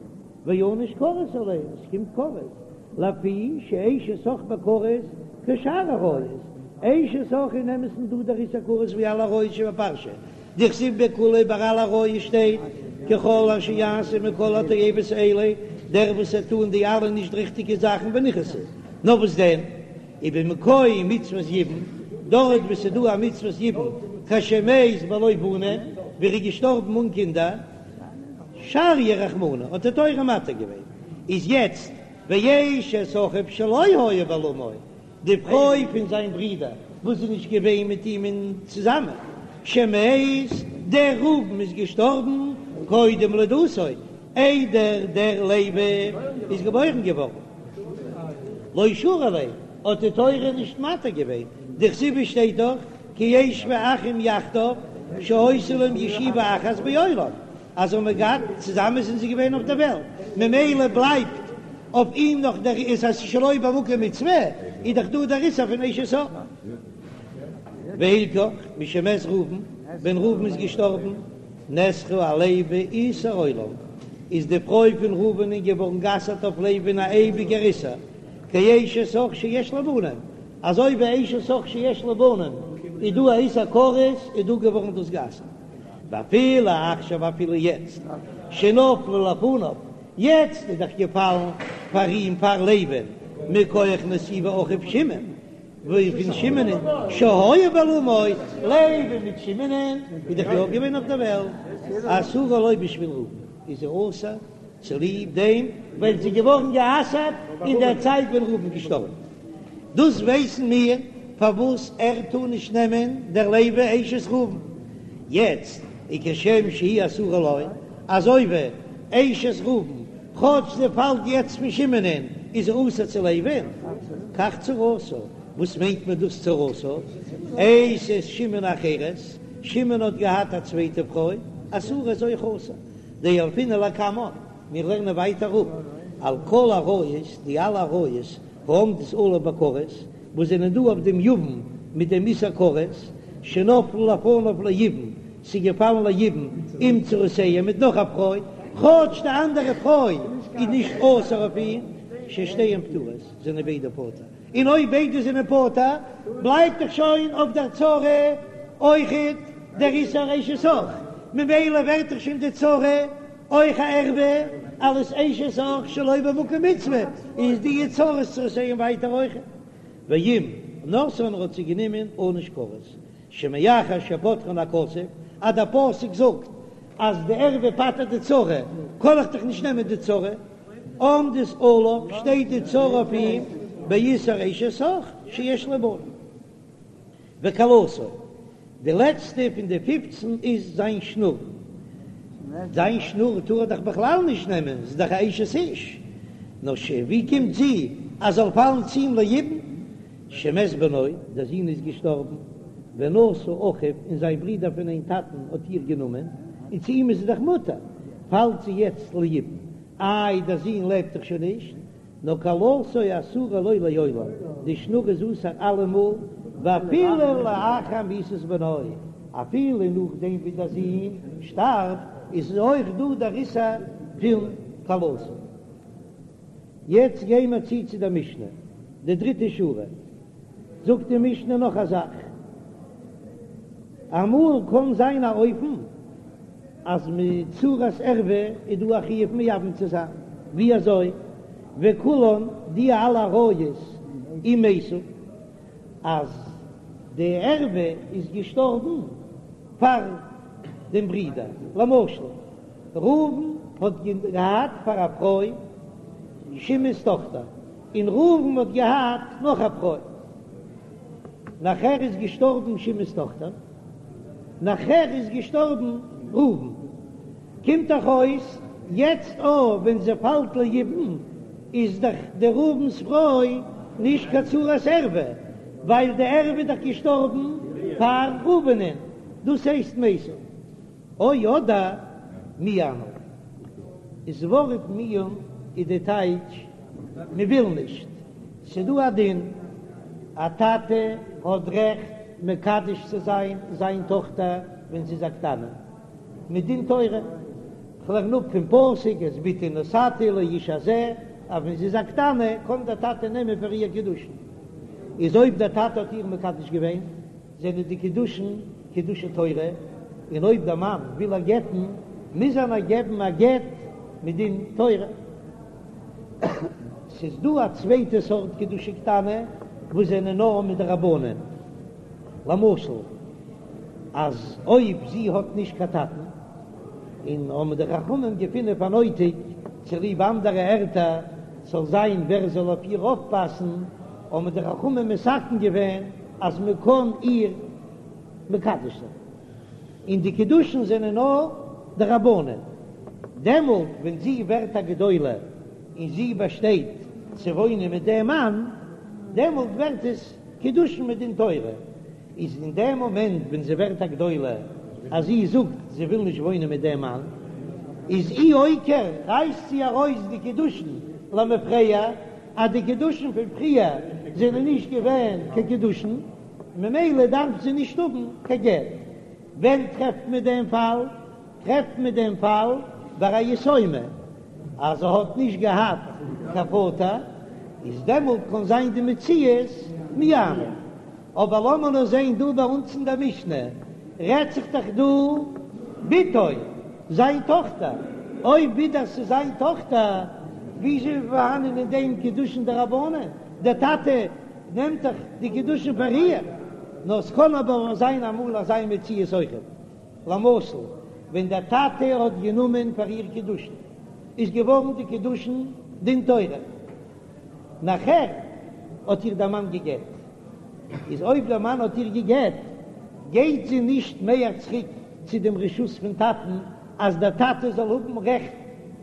וענוש כרת עליה, עס קומט כרת, לפי שאשת אח בכרת כשאר עריות, אשת אח אין אמת'ן דא דער איסור כרת ווי אלע עריות שבפרשה, דכתיב בכולהו ביי אלע עריות שטייט ככל אשר יעשה מכל התועבות האלה, דער וואס וועט טון די אלע נישט ריכטיגע זאכן ונכרתו, נאר וואס דען ובמקום מצוות יבום, דארט וואו ס'איז דא א מצוות יבום כשמת בלא בנים, ווי ער איז געשטארבן אן קינדער, שריא רחמנא האט די תורה מתיר געווען, איז יעצט ואשת אחיו שלא היה בעולמו, די פרוי פון זיין ברודער וואס איז נישט געווען מיט אים אין צוזאמען, שמת, דער ראובן איז געשטארבן קודם לידתו, איידער דער לוי איז געבוירן געווארן, לא שרו ליה, האט די תורה נישט מתיר געווען. דכתיב שטייט דאך כי ישבו אחים יחדיו שהיתה להם ישיבה אחת בעולם, אז האבן געהאט צוזאמען זענען זיי געווען אויף דער וועלט, ממילא בלייבט אויף אים נאך דער איסור אז שלא במקום מצוה, איז דאך דא דער איסור פון אשת אח. והלכך, משמת ראובן, ווען ראובן איז געשטארבן, נאסרה על לוי איסור עולם, איז די פרוי פון ראובנ'ען געווארן גע'אסר'ט אויף לוי'ן א אייביגער איסור, כאשת אח שיש לה בנים, אזוי ווי אשת אח שיש לה בנים איז דא א איסור כרת, איז דא געווארן דאס גע'אסר'ט. ואפילו עכשיו אפילו יעצט שנפלה לפניו, יעצט איז דאך געפאלן פאר אים פאר לוי'ן מכח נסיבת אחיו שמעון, ווי פון שמעונ'ען שהיה בעולמו, לוי מיט שמעונ'ען איז דאך יא געווען אויף דער וועלט, אסורה לו בשביל ראובן, איז זי אסור צוליב דעם ווייל זי איז געווארן גע'אסר'ט אין דער צייט ווען ראובן איז געשטארבן. דאס ווייסן מיר פארוואס ער טאר נישט נעמען דער לוי אשת ראובן יעצט, וכשם שהיא אסורה לו, אזוי ווי אשת ראובן כאטש זי פאלט יעצט פון שמעונ'ען איז זי אסור צו לוי'ן, כך צרתה, וואס מיינט מען דאס צרתה? אשת שמעון אחרת, שמעון האט געהאט א צווייטע פרוי, אסורה איז אויך אסור, דילפינן לקמן, מיר לערנען ווייטער אפ על כל עריות, די אלע עריות העומדות עליו בכרת, וואס זענען דא אויף דעם יבם מיט דעם איסור כרת, שנפלו לפניו ליבום, ס'איז געפאלן ליבום עם צרותיהם מיט נאך א פרוי, כאטש די אנדערע פרוי איז נישט אסור אויף אים, ששתיהן פטורות, זענען ביידע פטור, און אויב ביידע זענען פטור, בלייבט דאך שוין אויף דער צרה אויכעט דער איסור אשת אח, ממילא ווערט דאך שוין די צרה אויך א ערווה, אלס אשת אח שלא במקום מצוה, איז די צרות צרותיהם ווייטער אויכעט. ואם נשאן האט זי גענומען ענוש כרת, שמאחר שפטרן הכתוב, אז דער פסוק זאגט אז די ערווה פטר'ט די צרה, קען איך דאך נישט נעמען די צרה, עומדת עליו, שטייט די צרה אויף אים, באיסור אשת אח שיש לו בנים. וכלתו, די לעצטע פון די פופצן איז זיין שנור, זיין שנור טאר ער דאך בכלל נישט נעמען, זי איז דאך א אשת איש, נאר ש ווי קומט זי אז זאל פאלן צו אים ליבום? שמת בנו, דער זון איז געשטארבן, ונשא אחיו, און זיין ברודער פון איין טאטן האט איר גענומען, און צו אים איז זי דאך מותר, פאלט זי יעצט ליבום, איי דער זון לעבט דאך שוין נישט, נאר כלתו אסורה לו לעולם, די שנור איז אסור אלעמאל, ואפילו לאחר מיתת בנו, אפילו נאכדעם ווי דער זון שטארבט, איז אויך דא דער איסור פון כלתו. יעצט גיי מיר צו צו דער משנה, די דריטע שורה, זאגט די משנה נאך א זאך, אמאל קען זיין א אופן אז מיט צרת ערווה איז דא א חיוב מייבם צו זיין, ווי אזוי? וכולן די אלע עריות אם מתו, אז די ערווה איז געשטארבן פאר דעם ברודער, למשל ראובן האט געהאט פאר א פרוי שמעון'ס טאכטער, און ראובן האט געהאט נאך א פרוי, נאכער איז געשטארבן שמעון'ס טאכטער, נאכער איז געשטארבן ראובן, קומט דאך אויס יעצט אויב ווען זי פאלט ליבום איז דאך די ראובן'ס פרוי נישט קיין צרת ערווה, ווייל די ערווה איז דאך געשטארבן פאר ראובנ'ען, דאס הייסט מתו. או אדער מיאנו. איז ווארט מיאון איז די טייטש מען וויל נישט. ס'דא א דין, א טאטע האט רעכט מקדש צו זיין זיין טאכטער ווען זי איז א קטנה, מדין תורה, כ'לערן אפ פון פסוק את בתי נתתי לאיש הזה, אז ווען זי איז א קטנה קען דער טאטע נעמען פאר איר קידושין, איז אויב דער טאטע האט איר מקדש געווען זענען די קידושין קידושי תורה, און אויב דער מאן וויל איר גט'ן מוז ער איר געבן א גט מדין תורה. ס'איז דא א צווייטע סארט קידושי קטנה וואס זענען נאר מדרבנן, למשל אז אויב זי האט נישט קיין טאטן, און האבן די חכמים געפונען פאר נויטיג צוליב אנדערע ערטער ס'זאל זיין ווער זאל אויף איר אויפפאסן, האבן די חכמים מתקן געווען אז מען קען איר מקדש זיין, און די קידושין זענען נאר דרבנן, דעמאלט ווען זי ווערט א גדולה און זי באשטייט צו וואוינען מיט דעם מאן, דעמאלט ווערט עס. קידושין מדין תורה, איז אין דעם מאמענט ווען זי ווערט א גדולה אז זי זאגט זי וויל נישט וואוינען מיט דעם מאן, איז אי אויקר רייסט זי ארויס די קידושין למפרע, אז די קידושין פון פריער זענען נישט געווען קיין קידושין, ממילא דארף זי נישט האבן קיין גט. ווען טרעפט מען דעם פאל? טרעפט מען דעם פאל ביי א יתומה אז זי האט נישט געהאט קיין פאטער, איז דעמאלט קען זיין די מציאות מיאנה. אבער לאמיר נאר זען דא ביי אונז אין דער משנה רעדט זיך דאך דא בתו, זיין טאכטער, אויב ווידער ס'איז זיין טאכטער, וויאזוי איז פארהאנען אין דעם קידושין דרבנן? דער טאטע נעמט דאך די קידושין פאר איר, נאר ס'קען אבער זיין אמאל אזא מציאות אויכעט. למשל ווען דער טאטע האט גענומען פאר איר קידושין, איז געווארן די קידושין דין תורה, נאכער האט איר דער מאן גע'גט, איז אויב דער מאן האט איר גע'גט, גייט זי נישט מער צוריק צו דעם רשות פון טאטן, אז דער טאטע זאל האבן רעכט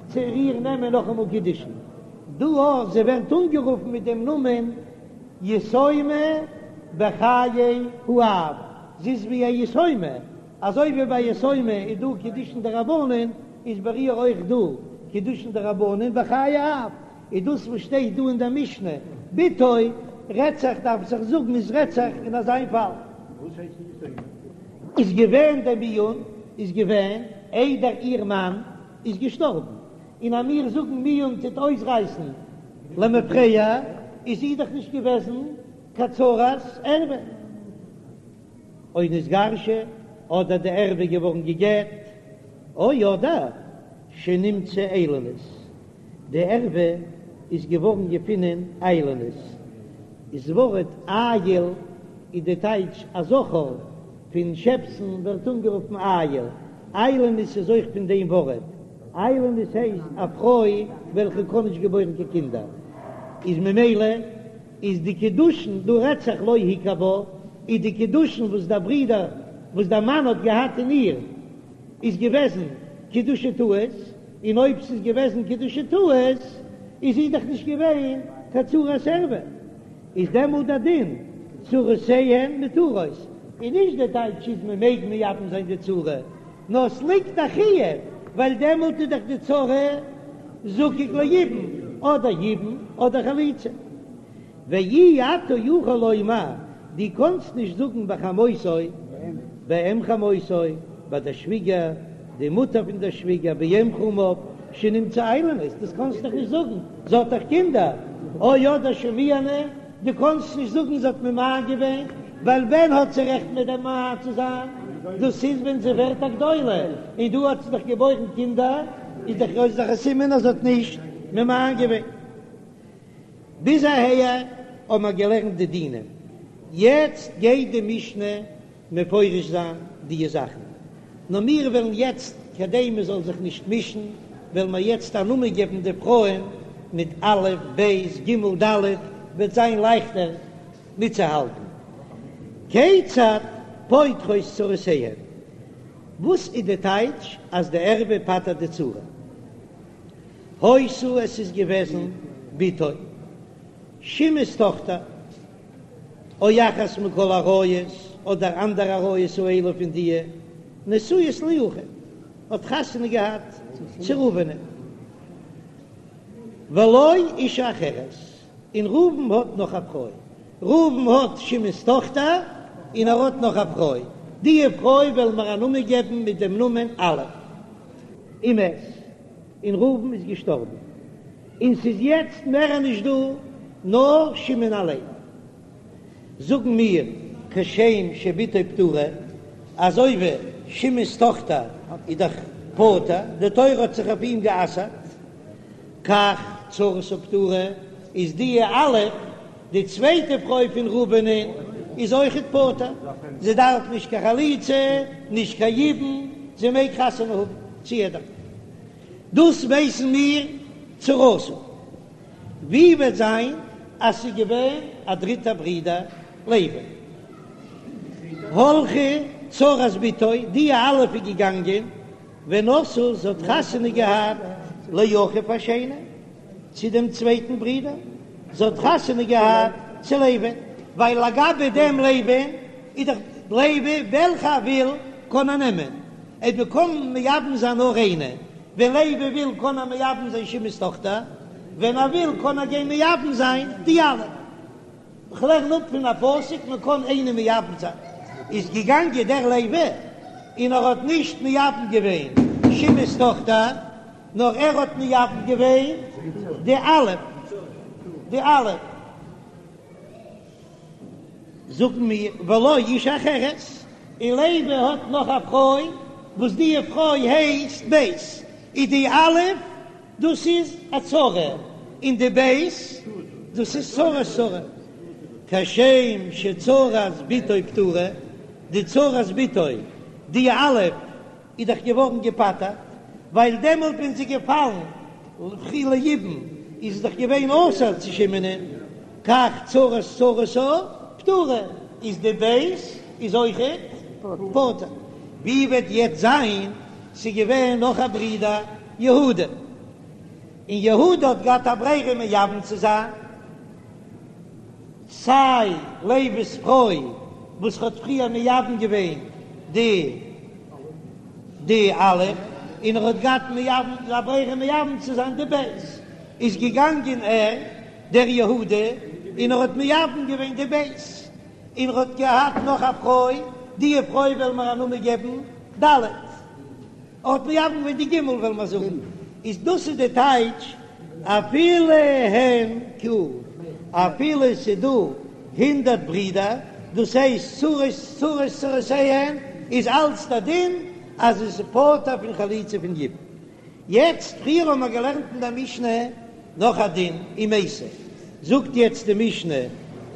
צו איר נעמען נאכאמאל קידושין, דא אויך, זי ווערט אנגערופן מיט דעם נאמען יתומה בחיי האב, זי איז ווי א יתומה, אזוי ווי ביי יתומה איז דא קידושין דרבנן, איז ביי איר אויך דא קידושין דרבנן בחיי האב, איז דאס וואס שטייט דא אין דער משנה בתו רעדט זיך דארף זיך זאגן איז רעדט זיך אין אזיין פאל. וואס הייסט יתומה? איז געווען דער מיאון איז געווען איידער איר מאן איז געשטארבן, און אז מיר זאגן מיאון טוט אויסרייסן למפרע איז זי דאך נישט געוועזן קיין צרת ערווה. או נתגרשה, אדער די ערווה געווארן גע'גט, או אדער שנמצאה איילונית, די ערווה איז געווארן געפינען איילונית, איז ווארט איל איז די טייטש א זכר פון שעפסן ווערט אנגערופן איל, איילונית איז אויך פון דעם ווארט, איילונית הייסט א פרוי וועלכע קען נישט געבוירן קיין קינדער, איז ממילא איז די קידושין דא רעדט זיך לא הכיר בה, איז די קידושין וואס דער ברודער וואס דער מאן האט געהאט אין איר איז געוועזן קידושי טעות, און אויב ס'איז געוועזן קידושי טעות איז זי דאך נישט געווען קיין צרת ערווה, איז דעמאלט דער דין צרותיהן מותרות, און נישט די טייטש איז מען מעג מייבם זיין די צרה, נאר ס'ליגט א חיוב ווייל דעמאלט איז דאך די צרה זקוק ליבום, אדער יבום אדער חליצה. ואי אתה יכול לומר, דו קאנסט נישט זאגן בחמותו, באם חמותו, ביי דער שוויגער, די מוטער פון דער שוויגער, באם חמיו, שנמצאה איילונית, דאס קאנסט דאך נישט זאגן, זי האט דאך קינדער, או אדער שמיאנה, דו קאנסט נישט זאגן זי האט ממאן געווען, ווייל ווען האט זי רעכט ממאן צו זיין? דאס איז ווען זי ווערט א גדולה, און דא האט זי דאך געבוירן קינדער, איז דאך איז דאך א סימן אז זי האט נישט ממאן געווען. ביז אהער האבן מיר געלערנט די דינים, יעצט גייט די משנה מפרש זיין די זאכן, נאר מיר וועלן יעצט, כדי מען זאל זיך נישט מישן, וועלן מיר יעצט א נאמען געבן די פרויען מיט א', ב', ג', ד', וועט זיין לייכטער מיטצוהאלטן. כיצד פוטרות צרותיהן? וואס איז די טייטש אז די ערווה פטר'ט די צרה? היתה עס איז געוועזן בתו שמעון'ס טאכטער או אחת מכל העריות אדער אנדערע עריות האלו פון דיע נשואות לאחיו האט חתונה געהאט צו ראובנ'ען ולו אשה אחרת און ראובן האט נאך א פרוי ראובן האט שמעון'ס טאכטער און ער האט נאך א פרוי דיע פרוי וועלן מיר א נאמען געבן מיט דעם נאמען א' ומת. און ראובן איז געשטארבן, און ס'איז יעצט מער נישט דא נאר שמעון אליין. זאגן מיר כשם שבתו פטורה, אזוי ווי שמעון'ס טאכטער איז דאך פטור, די תורה האט זיך אויף אים גע'אסר'ט, כך צרתה פטורה, איז די א', די צווייטע פרוי פון ראובנ'ען, איז אויכעט פטור, זי דארף נישט קיין חליצה, נישט קיין יבום, זי מעג חתונה האבן צו יעדער. דאס ווייסן מיר צרתה. ווי וועט זיין אז ס'איז געווען א דריטער ברודער לוי? הלכה צרת בתו, די א' איז געגאנגען ונשאה, זי האט חתונה געהאט לאחיו השני, צו דעם צווייטן ברודער, זי האט חתונה געהאט צו לוי. ווייל לגבי דעם לוי'ן איז דאך לוי וועלכע ער וויל קען ער נעמען, אויב מען קען מייבם זיין נאר איינע, ווען לוי וויל קען ער מייבם זיין שמעון'ס טאכטער, ווען ער וויל קען ער גיין מייבם זיין די א'. כ'לערן אפ פון א פסוק מען קען איינע מייבם זיין, איז געגאנגען דער לוי און ער האט נישט מייבם געווען שמעון'ס טאכטער, נאר ער האט מייבם געווען די א', די א'. זאגן מיר ולו אשה אחרת, און לוי האט נאך א פרוי וואס די פרוי הייסט ב', איז די א' דאס איז א צרה, און די ב' דאס איז צרת צרה, כשם שצרת בתו פטורה, די צרת בתו די א' איז דאך געווארן געפטר'ט, ווייל דעמאלט ווען זי געפאלן ליבום איז זי דאך געווען אסור צו שמעונ'ען, כך צרת צרתה פטורה, איז די ב' איז אויכעט פטור. ווי וועט יעצט זיין, ס'איז געווען נאך א ברודער יהודה, און יהודה האט געהאט א ברירה מייבם צו זיין, סיי לוי'ס פרוי וואס האט פריער מייבם געווען די די א', און ער האט געהאט מייבם א ברירה מייבם צו זיין די ב', איז געגאנגען ער דער יהודה און ער האט מייבם געווען די ב', און ער האט געהאט נאך א פרוי, די פרוי וועלן מיר א נאמען געבן ד'. ער האט מייבם געווען די ג' וועלן מיר זאגן איז דאס איז די טייטש אפילו הן כו אפילו ס'איז דא הונדערט ברידער דאס הייסט צרות צרות צרותיהן איז אלץ די דין אז עס איז פטור פון חליצה פון יבום. יעצט פריער האבן מיר געלערנט אין די משנה נאך א דין אם מתה זאגט יעצט די משנה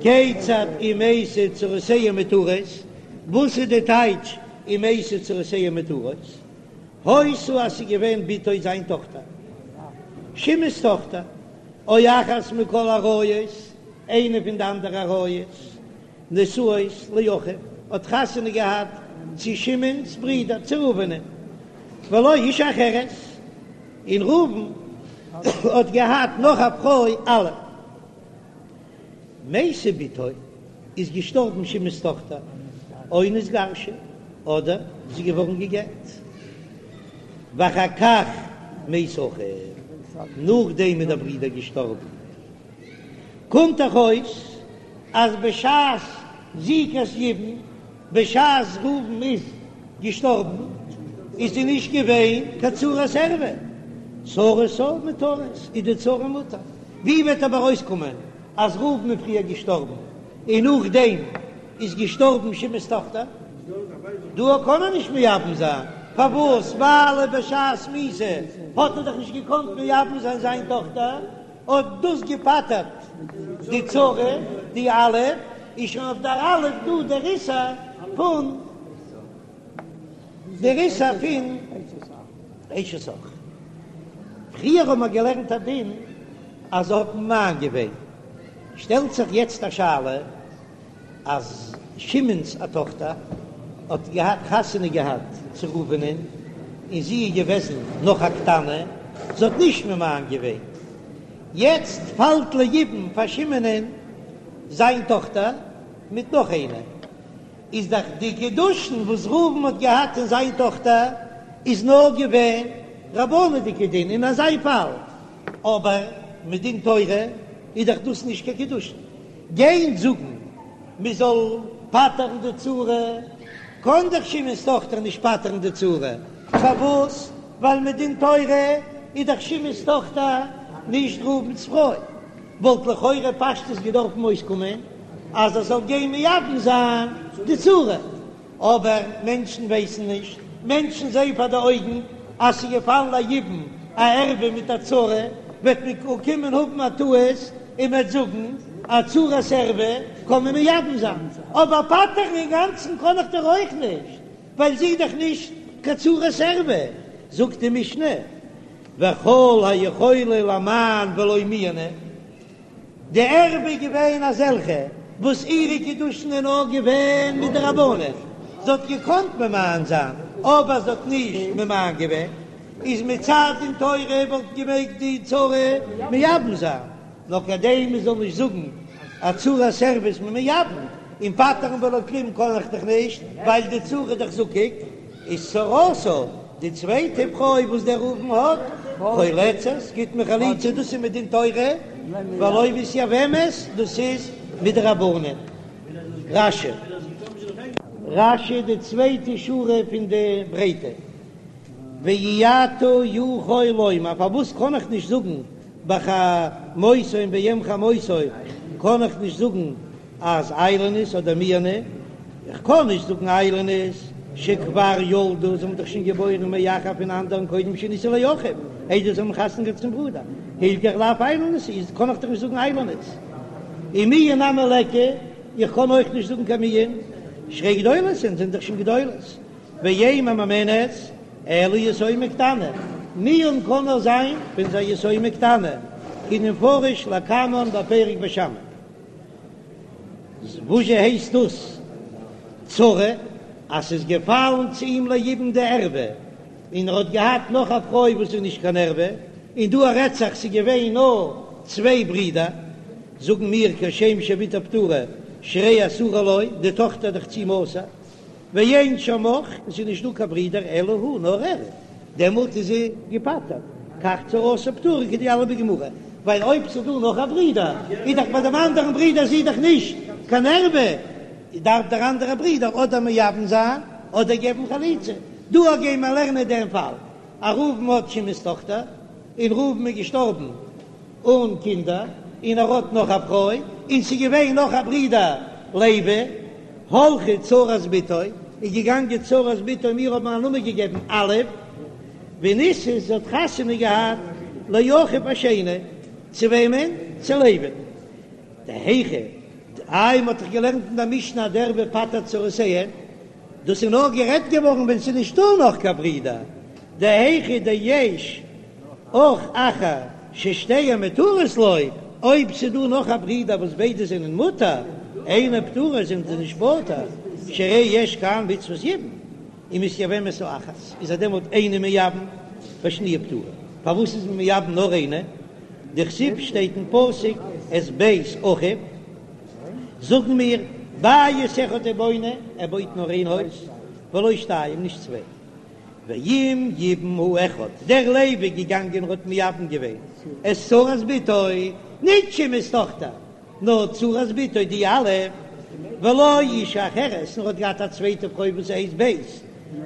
כיצד אם מתה צרותיהן מותרות וואס איז די טייטש אם מתה צרותיהן מותרות, היתה אז ס'איז געווען בתו זיין טאכטער, שמעון'ס טאכטער, או אחת מכל עריות, איינע פון די אנדערע עריות, נשואות לאחיו, האט חתונה געהאט צו שמעון'ס ברודער, צו ראובנ'ען, ולו אשה אחרת, און ראובן האט געהאט נאך א פרוי א'. מתה בתו איז געשטארבן שמעון'ס טאכטער, או נתגרשה, אדער זי איז געווארן גע'גט, ואחר כך מת אחיו, נאכדעם איז דער ברודער געשטארבן, קומט דאך אויס אז בשעת זיקת יבום בשעת ראובן איז געשטארבן איז זי נישט געווען קיין צרת ערווה, צרתה מותרת איז די צרה מותר, ווי וועט אבער אויסקומען אז ראובן איז פריער געשטארבן און נאכדעם איז געשטארבן שמעון'ס טאכטער? דא קען ער נישט מייבם זיין, פארוואס? ווייל בשעת מיתה האט ער דאך נישט געקאנט מייבם זיין זיין טאכטער. האט דאס געפטר'ט די צרה, די א', איז שוין אויף דער א' דא דער איסור פון דער איסור פון אשת אח. פריער האבן מיר געלערנט א דין אז זי האט ממאן געווען, שטעלט זיך יעצט א שאלה, אז שמעון'ס א טאכטער האט געהאט חתונה געהאט צו ראובנ'ען און זי איז געוועזן נאך א קטנה, זי האט נישט ממאן געווען, יעצט פאלט ליבום פאר שמעון'ען זיין טאכטער מיט נאך איינער, איז דאך די קידושין וואס ראובן האט געהאט אין זיין טאכטער איז נאר געווען רבנן'דיגע דין אין אזא פאל, אבער מדין תורה איז דאך דאס נישט קיין קידושין. גיין זאגן מען זאל פטר'ן די צרה, קען דאך שמעון'ס טאכטער נישט פטר'ן די צרה, פארוואס? ווייל מדין תורה איז דאך שמעון'ס טאכטער נישט ראובן'ס פרוי, וואלט לכאורה פשטות געדארפן אויסקומען אז ער זאל גיין מייבם זיין די צרה. אבער מענטשן ווייסן נישט, מענטשן זעען פאר די אויגן אז ס'איז געפאלן ליבום א ערווה מיט א צרה, וועט מען קומען האבן א טעות און מ'וועט זאגן א צרת ערווה קען מען מייבם זיין, אבער פטר'ן אינגאנצן קען איך דאך אויך נישט, ווייל זי איז דאך נישט קיין צרת ערווה, זאגט די משנה, וכל היכולה למאן ולא מיאנה. די ערווה איז געווען אזעלכע וואס אירע קידושין איז נאר געווען מדרבנן, זי האט געקאנט ממאן זיין אבער זי האט נישט ממאן געווען, איז מצד דין תורה וואלט געמעגט די צרה מייבם זיין, נאר כדי מען זאל נישט זאגן. א צרת ערוה איז מען מייבם, און פטר'ן בלא כלום קען איך דאך נישט, ווייל די צרה איז דאך זקוק, איז צרתה די צווייטע פרוי וואס דער ראובן האט, חולצת, גיט מען חליצה, דאס איז מדין תורה, ולא מתייבמת, דאס איז מדרבנן. רש"י. רש"י די צווייטע שורה פון די ברייטע. ואי אתה יכול לומר, פארוואס קען איך נישט זאגן בחמותו און באם חמותו קען איך נישט זאגן אז איילונית אדער מיאנה, איך קען נישט זאגן איילונית שכבר ילדו, זיי האבן דאך שוין געבוירן מאחר פון אנדערן קודם שנישאו לאחיו, איידער זיי האבן חתונה געהאט צום ברודער, הילכך לאו איילונית איז קען איך דאך נישט זאגן איילונית. ומיאון נמי ליכא, איך קען אויך נישט זאגן קיין מיאון, שהרי גדולות הן, זענען דאך שוין גדולות. ואין ממאנת אלא יתומה קטנה, מיאון קען נאר זיין ווען ס'איז א יתומה קטנה, כדמפרש לקמן בפרק בית שמאי. וואזשע הייסט דאס צרה? אז ס'איז געפאלן צו אים ליבום די ערווה, און ער האט געהאט נאך א פרוי וואס איז נישט קיין ערווה, און דא רעדט זיך ס'איז געווען נאר צוויי ברידער, זאגן מיר כשם שבתו פטורה שהרי אסורה לו, די טאכטער איז דאך צו אים אסור, ואין שם אח, עס איז נישט דא קיין ברידער אלא הוא, נאר ער, דעמאלט איז זי געפטר'ט, כך צרתה פטורה כדיליף בגמרא, ווייל אויב ס'איז דא נאך א ברידער, איז דאך ביי דעם אנדערן ברידער זי דאך נישט קיין ערווה, דארף דער אנדערער ברידער אדער מייבם זיין אדער געבן חליצה. דא גייען מיר לערנען דעם פאל, אז ראובן האט שמעון'ס טאכטער, און ראובן איז געשטארבן אן קינדער, און ער האט נאך א פרוי, און ס'איז געווען נאך א ברודער לוי, הלכה צרת בתו, איז געגאנגען צרת בתו, מיר האבן א נאמען געגעבן א', ונישאת, זי האט חתונה געהאט לאחיו השני, צו וועמען? צו לוי. דהיכא, איי מ'האט דאך געלערנט אין דער משנה אז די ערוה פטר'ט צרותיהן, דאס איז נאר גערעדט געווארן ווען ס'איז נישטא נאך קיין ברודער, דהיכא דיש אח אחר ששתיהן מותרות לו, אויב ס'איז דא נאך א ברודער וואס ביידע זענען מותר, אינן פטורות זענען זיי נישט פטור, שהרי יש כאן מצוות יבום, ומתייבמת האחת, איז ער דעמאלט איינע מייבם והשניה פטורה, פארוואס איז מען מייבם נאר איינע? דכתיב שטייט אין פסוק את בית אחיו, זאגן מיר בית אחד הוא בונה, ער בויט נאר איין הויז, ולא שתיים, נישט צוויי. ואם יבם האחד, דער לוי איז געגאנגען און האט מייבם געווען את צרת בתו, נישט שמעון'ס טאכטער, נאר צרת בתו די א', ולו אשה אחרת, און ער האט געהאט א צווייטע פרוי וואס הייסט ב',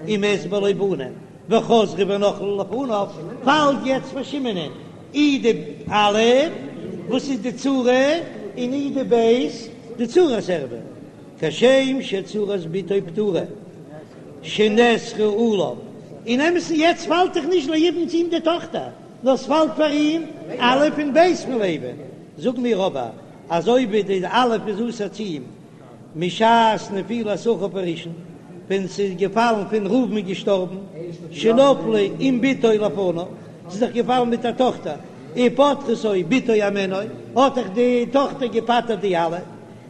ומת בלא בנים, וחזרו ונפלו לפניו, פאלט יעצט פאר שמעונ'ען אי די א' וואס איז די צרה, און אי די ב' די צרת ערוה. כשם שצרת בתו פטורה שנאסרה עליו, אין אמת'ן יעצט פאלט דאך נישט ליבום צו אים די טאכטער, נאר ס'פאלט פאר אים א' און ב' פון לוי, זאג מיר אבער אזוי ווי די א' איז אסור צו אים משעת נפילת אחיו הראשון, ווען ס'איז געפאלן פון ראובן איז געשטארבן, שנפלה עם בתו לפניו, ס'איז דאך געפאלן מיט א טאכטער, ופטרתו בתו הימנו, האט דאך די טאכטער געפטר'ט די א'.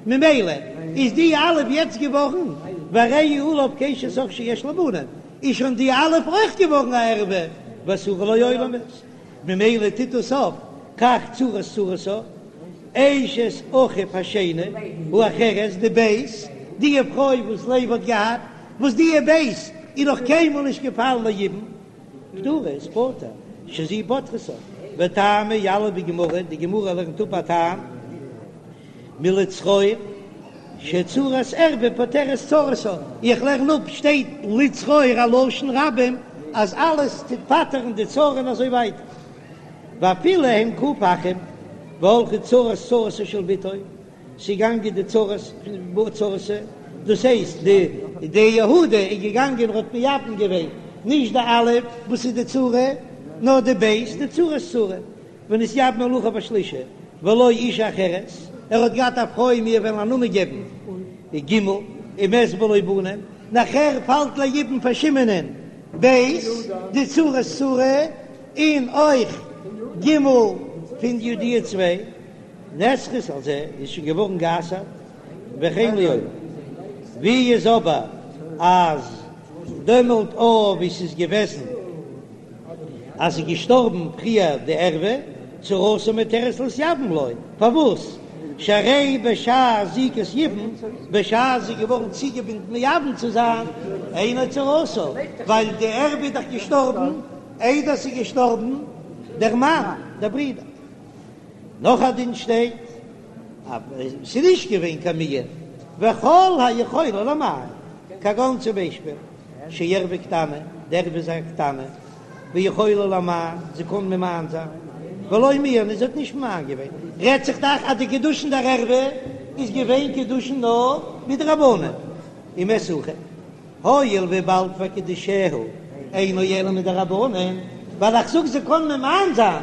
ממילא איז די א' יעצט געווארן והרי היא עליו כאשת אח שיש לה בנים, איז שוין די א' אויך געווארן א ערווה ואסורה לו עולמית, ממילא טוט עס אויף כך צרת צרתה אשת אחיו השני האחרת די ב' די פרוי וואס לוי האט געהאט, וואס די ב' איז נאך קיינמאל נישט געפאלן ליבום, פטורה איז פטור, שזו פוטרתה, וטעמא יליף בגמרא, די גמרא לערנט אפ א טעם. מלצרור שצרת ערווה פוטרת צרתה, איך לערן אפ שטייט לצרור א לשון רבים אז אלעס טוט פטר'ן די צרה און אזוי ווייטער, ואפילו הן ק' אחים והלכה צרת צרתה של בתו, ס'געגאנגען די צרת צרתה, דאס הייסט די די יהודה איז געגאנגען און האט מייבם געווען נישט די א' וואס איז די צרה נאר די ב' די צרת צרה. ונתייבמה לאחיו השלישי ולו אשה אחרת, ער האט געהאט א פרוי מיר וועלן א נאמען געבן ג' ומת בלא בנים, נאכער פאלט ליבום פאר שמעונ'ען ב' די צרת צרה און אויך ג' פון די צוויי נאסרת על זה איז שוין געווארן גע'אסר'ט וכן לעולם, ווי איז אבער אז דעמאלט אויף ווי ס'איז געוועזן. אז ס'איז געשטארבן פריער די ערווה, צרתה מותרת להתייבם לו, פארוואס? שהרי בשעת זיקת יבום, בשעת זי איז געווארן צוגעבינדן מייבם צו זיין, אינה צרתה, ווייל די ערווה איז דאך געשטארבן איידער ס'איז געשטארבן דער מאן, דער ברודער. נאך א דין שטייט אז ס'איז נישט געווען קיין מיאון, וכל היכולה למאן, כגון צום ביישפיל שערווה קטנה, די ערווה איז א קטנה, ויכולה למאן, זי קען ממאן זיין, ולא מיאנה, זי האט נישט ממאן געווען, רעדט זיך דאך אז די קידושין דער ערווה איז געווען קידושין נאר מדרבנן, ומת אחיו, הואיל וויבאלד וקידושיה אינו אלא מדרבנן, ווייל איך זאג זי קען ממאן זיין,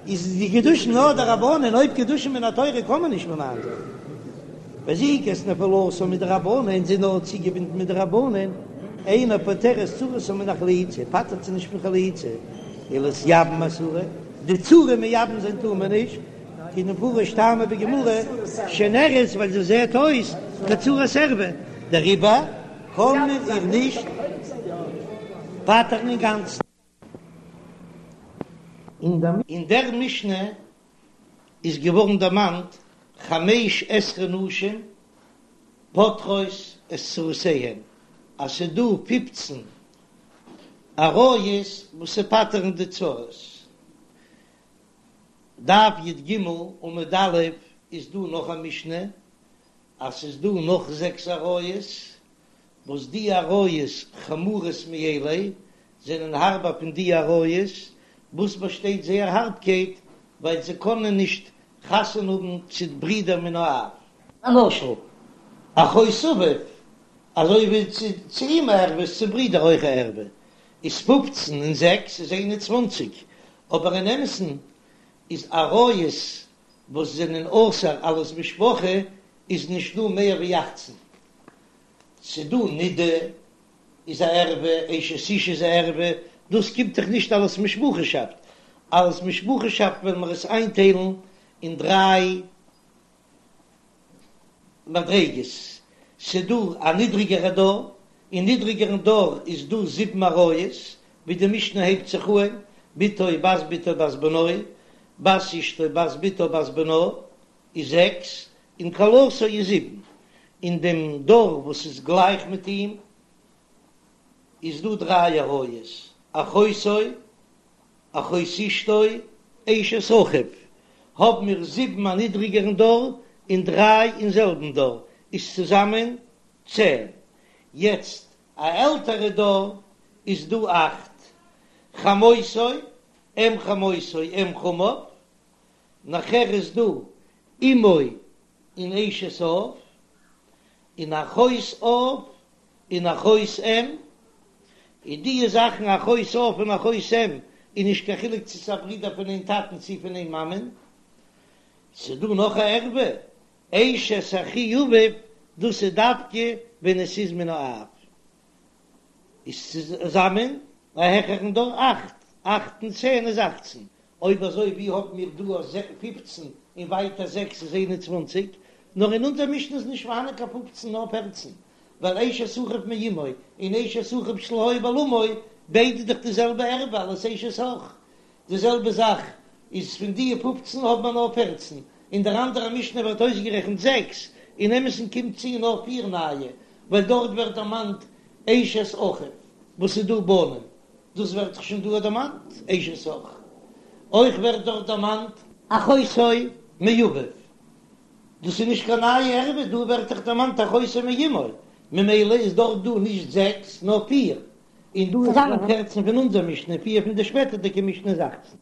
איז די קידושין נאר דרבנן, אויב קידושין מן התורה קען מען נישט ממאן זיין. וזיקת נפילתה מדרבנן, זי איז נאר צוגעבינדן מדרבנן, אינה פוטרת צרתה מן החליצה, פטר'ט זי נישט פון חליצה, ולהתייבם אסורה, די צרה מייבם זיין טאר מען נישט, כדמפרש טעמא בגמרא, שנראית ווייל זי זעט אויס כצרת ערווה, דעריבער קען מען איר נישט פטר'ן אינגאנצן. אין דער משנה איז געווארן דערמאנט חמש עשרה נשים פוטרות את צרותיהן, אז ס'איז דא פופצן עריות וואס ס'פטר'ן די צרות. דף י"ג עמוד א' איז דא נאך א משנה אז ס'איז דא נאך זעקס עריות, וואס די עריות חמורות מאלו זענען הארבער פון די עריות, וואס באשטייט זייער הארבקייט ווייל זיי קענען נישט חתונה האבן צו ברידער מן האב. למשל, אחות אביו, אזוי ווי צו אים א ערווה איז צו ברידער אויך א ערווה, איז פופצן און זעקס איז איין און צוואנציג, אבער אין אמת'ן איז עריות וואס זענען אסור אלס משפחה איז נישט דא מער ווי אכצן, ס'דא נידה איז א ערווה, אשת איש איז א ערווה, דאס קומט דאך נישט אלס משפחה'שאפט, אלס משפחה'שאפט וועלן מיר עס איינטיילן אין דריי מדריגות, ס'דא א נידריגערע דור, אין נידריגערן דור איז דא זיבן עריות, ווי די משנה הייבט זיך אהן, בתו בת בתו בת בנו, בת אשתו בת בתו בת בנה, איז זעקס, און כלתו איז זיבן, אין דעם דור וואס איז גלייך מיט אים איז דא דריי עריות, אחותו, אחות אשתו, אשת אחיו, האבן מיר זיבן א נידריגערן דור און דריי אין זעלבן דור, איז צוזאמען צען, יעצט א עלטערע דור איז דא אכט, חמותו, אם חמותו, אם חמיו, נאכער איז דא אמו און אשת אב, און אחות אב און אחות אם, און די זאכן אחות אב און אחות אם איז נישט קיין חילוק צו ס'איז א ברודער פון איין טאטן צו פון איין מאמען, ס'איז דא נאך א ערווה, אשת אחי אביו, דאס איז דווקא ווען עס איז מן האב. איז צוזאמען א העכערן דור אכט, אכט און צען איז אכצן, אויב אזוי ווי האבן מיר דא א פופצן און ווייטער זעקס איז איין און צוואנציג, נאר אין אונזער משנה איז נישט פארהאנען קיין פופצן נאר פערצן, ווייל אשת אחיו מאמו און אשת אחיו שלא היה בעולמו ביידע דאך די זעלבע ערווה אלס אשת אח, די זעלבע זאך איז פון די פופצן האט מען נאר פערצן, אין דער אנדערע משנה ווערט אויסגערעכנט זעקס, אין אמת'ן קומט צו נאר פיר נייע, ווייל דארט ווערט דערמאנט אשת אחיו וואס איז דא בנים, דאס ווערט דאך שוין דא דערמאנט אשת אח, אויך ווערט דארט דערמאנט אחותו מאביו, דאס איז נישט קיין נייע ערווה, דא ווערט דאך דערמאנט אחותו מאמו, ממילא איז דארט דא נישט זעקס נאר פיר, און דא איז צוזאמען פערצן פון אונזער משנה, פיר פון די שפעטערדיגע משנה איז אכצן.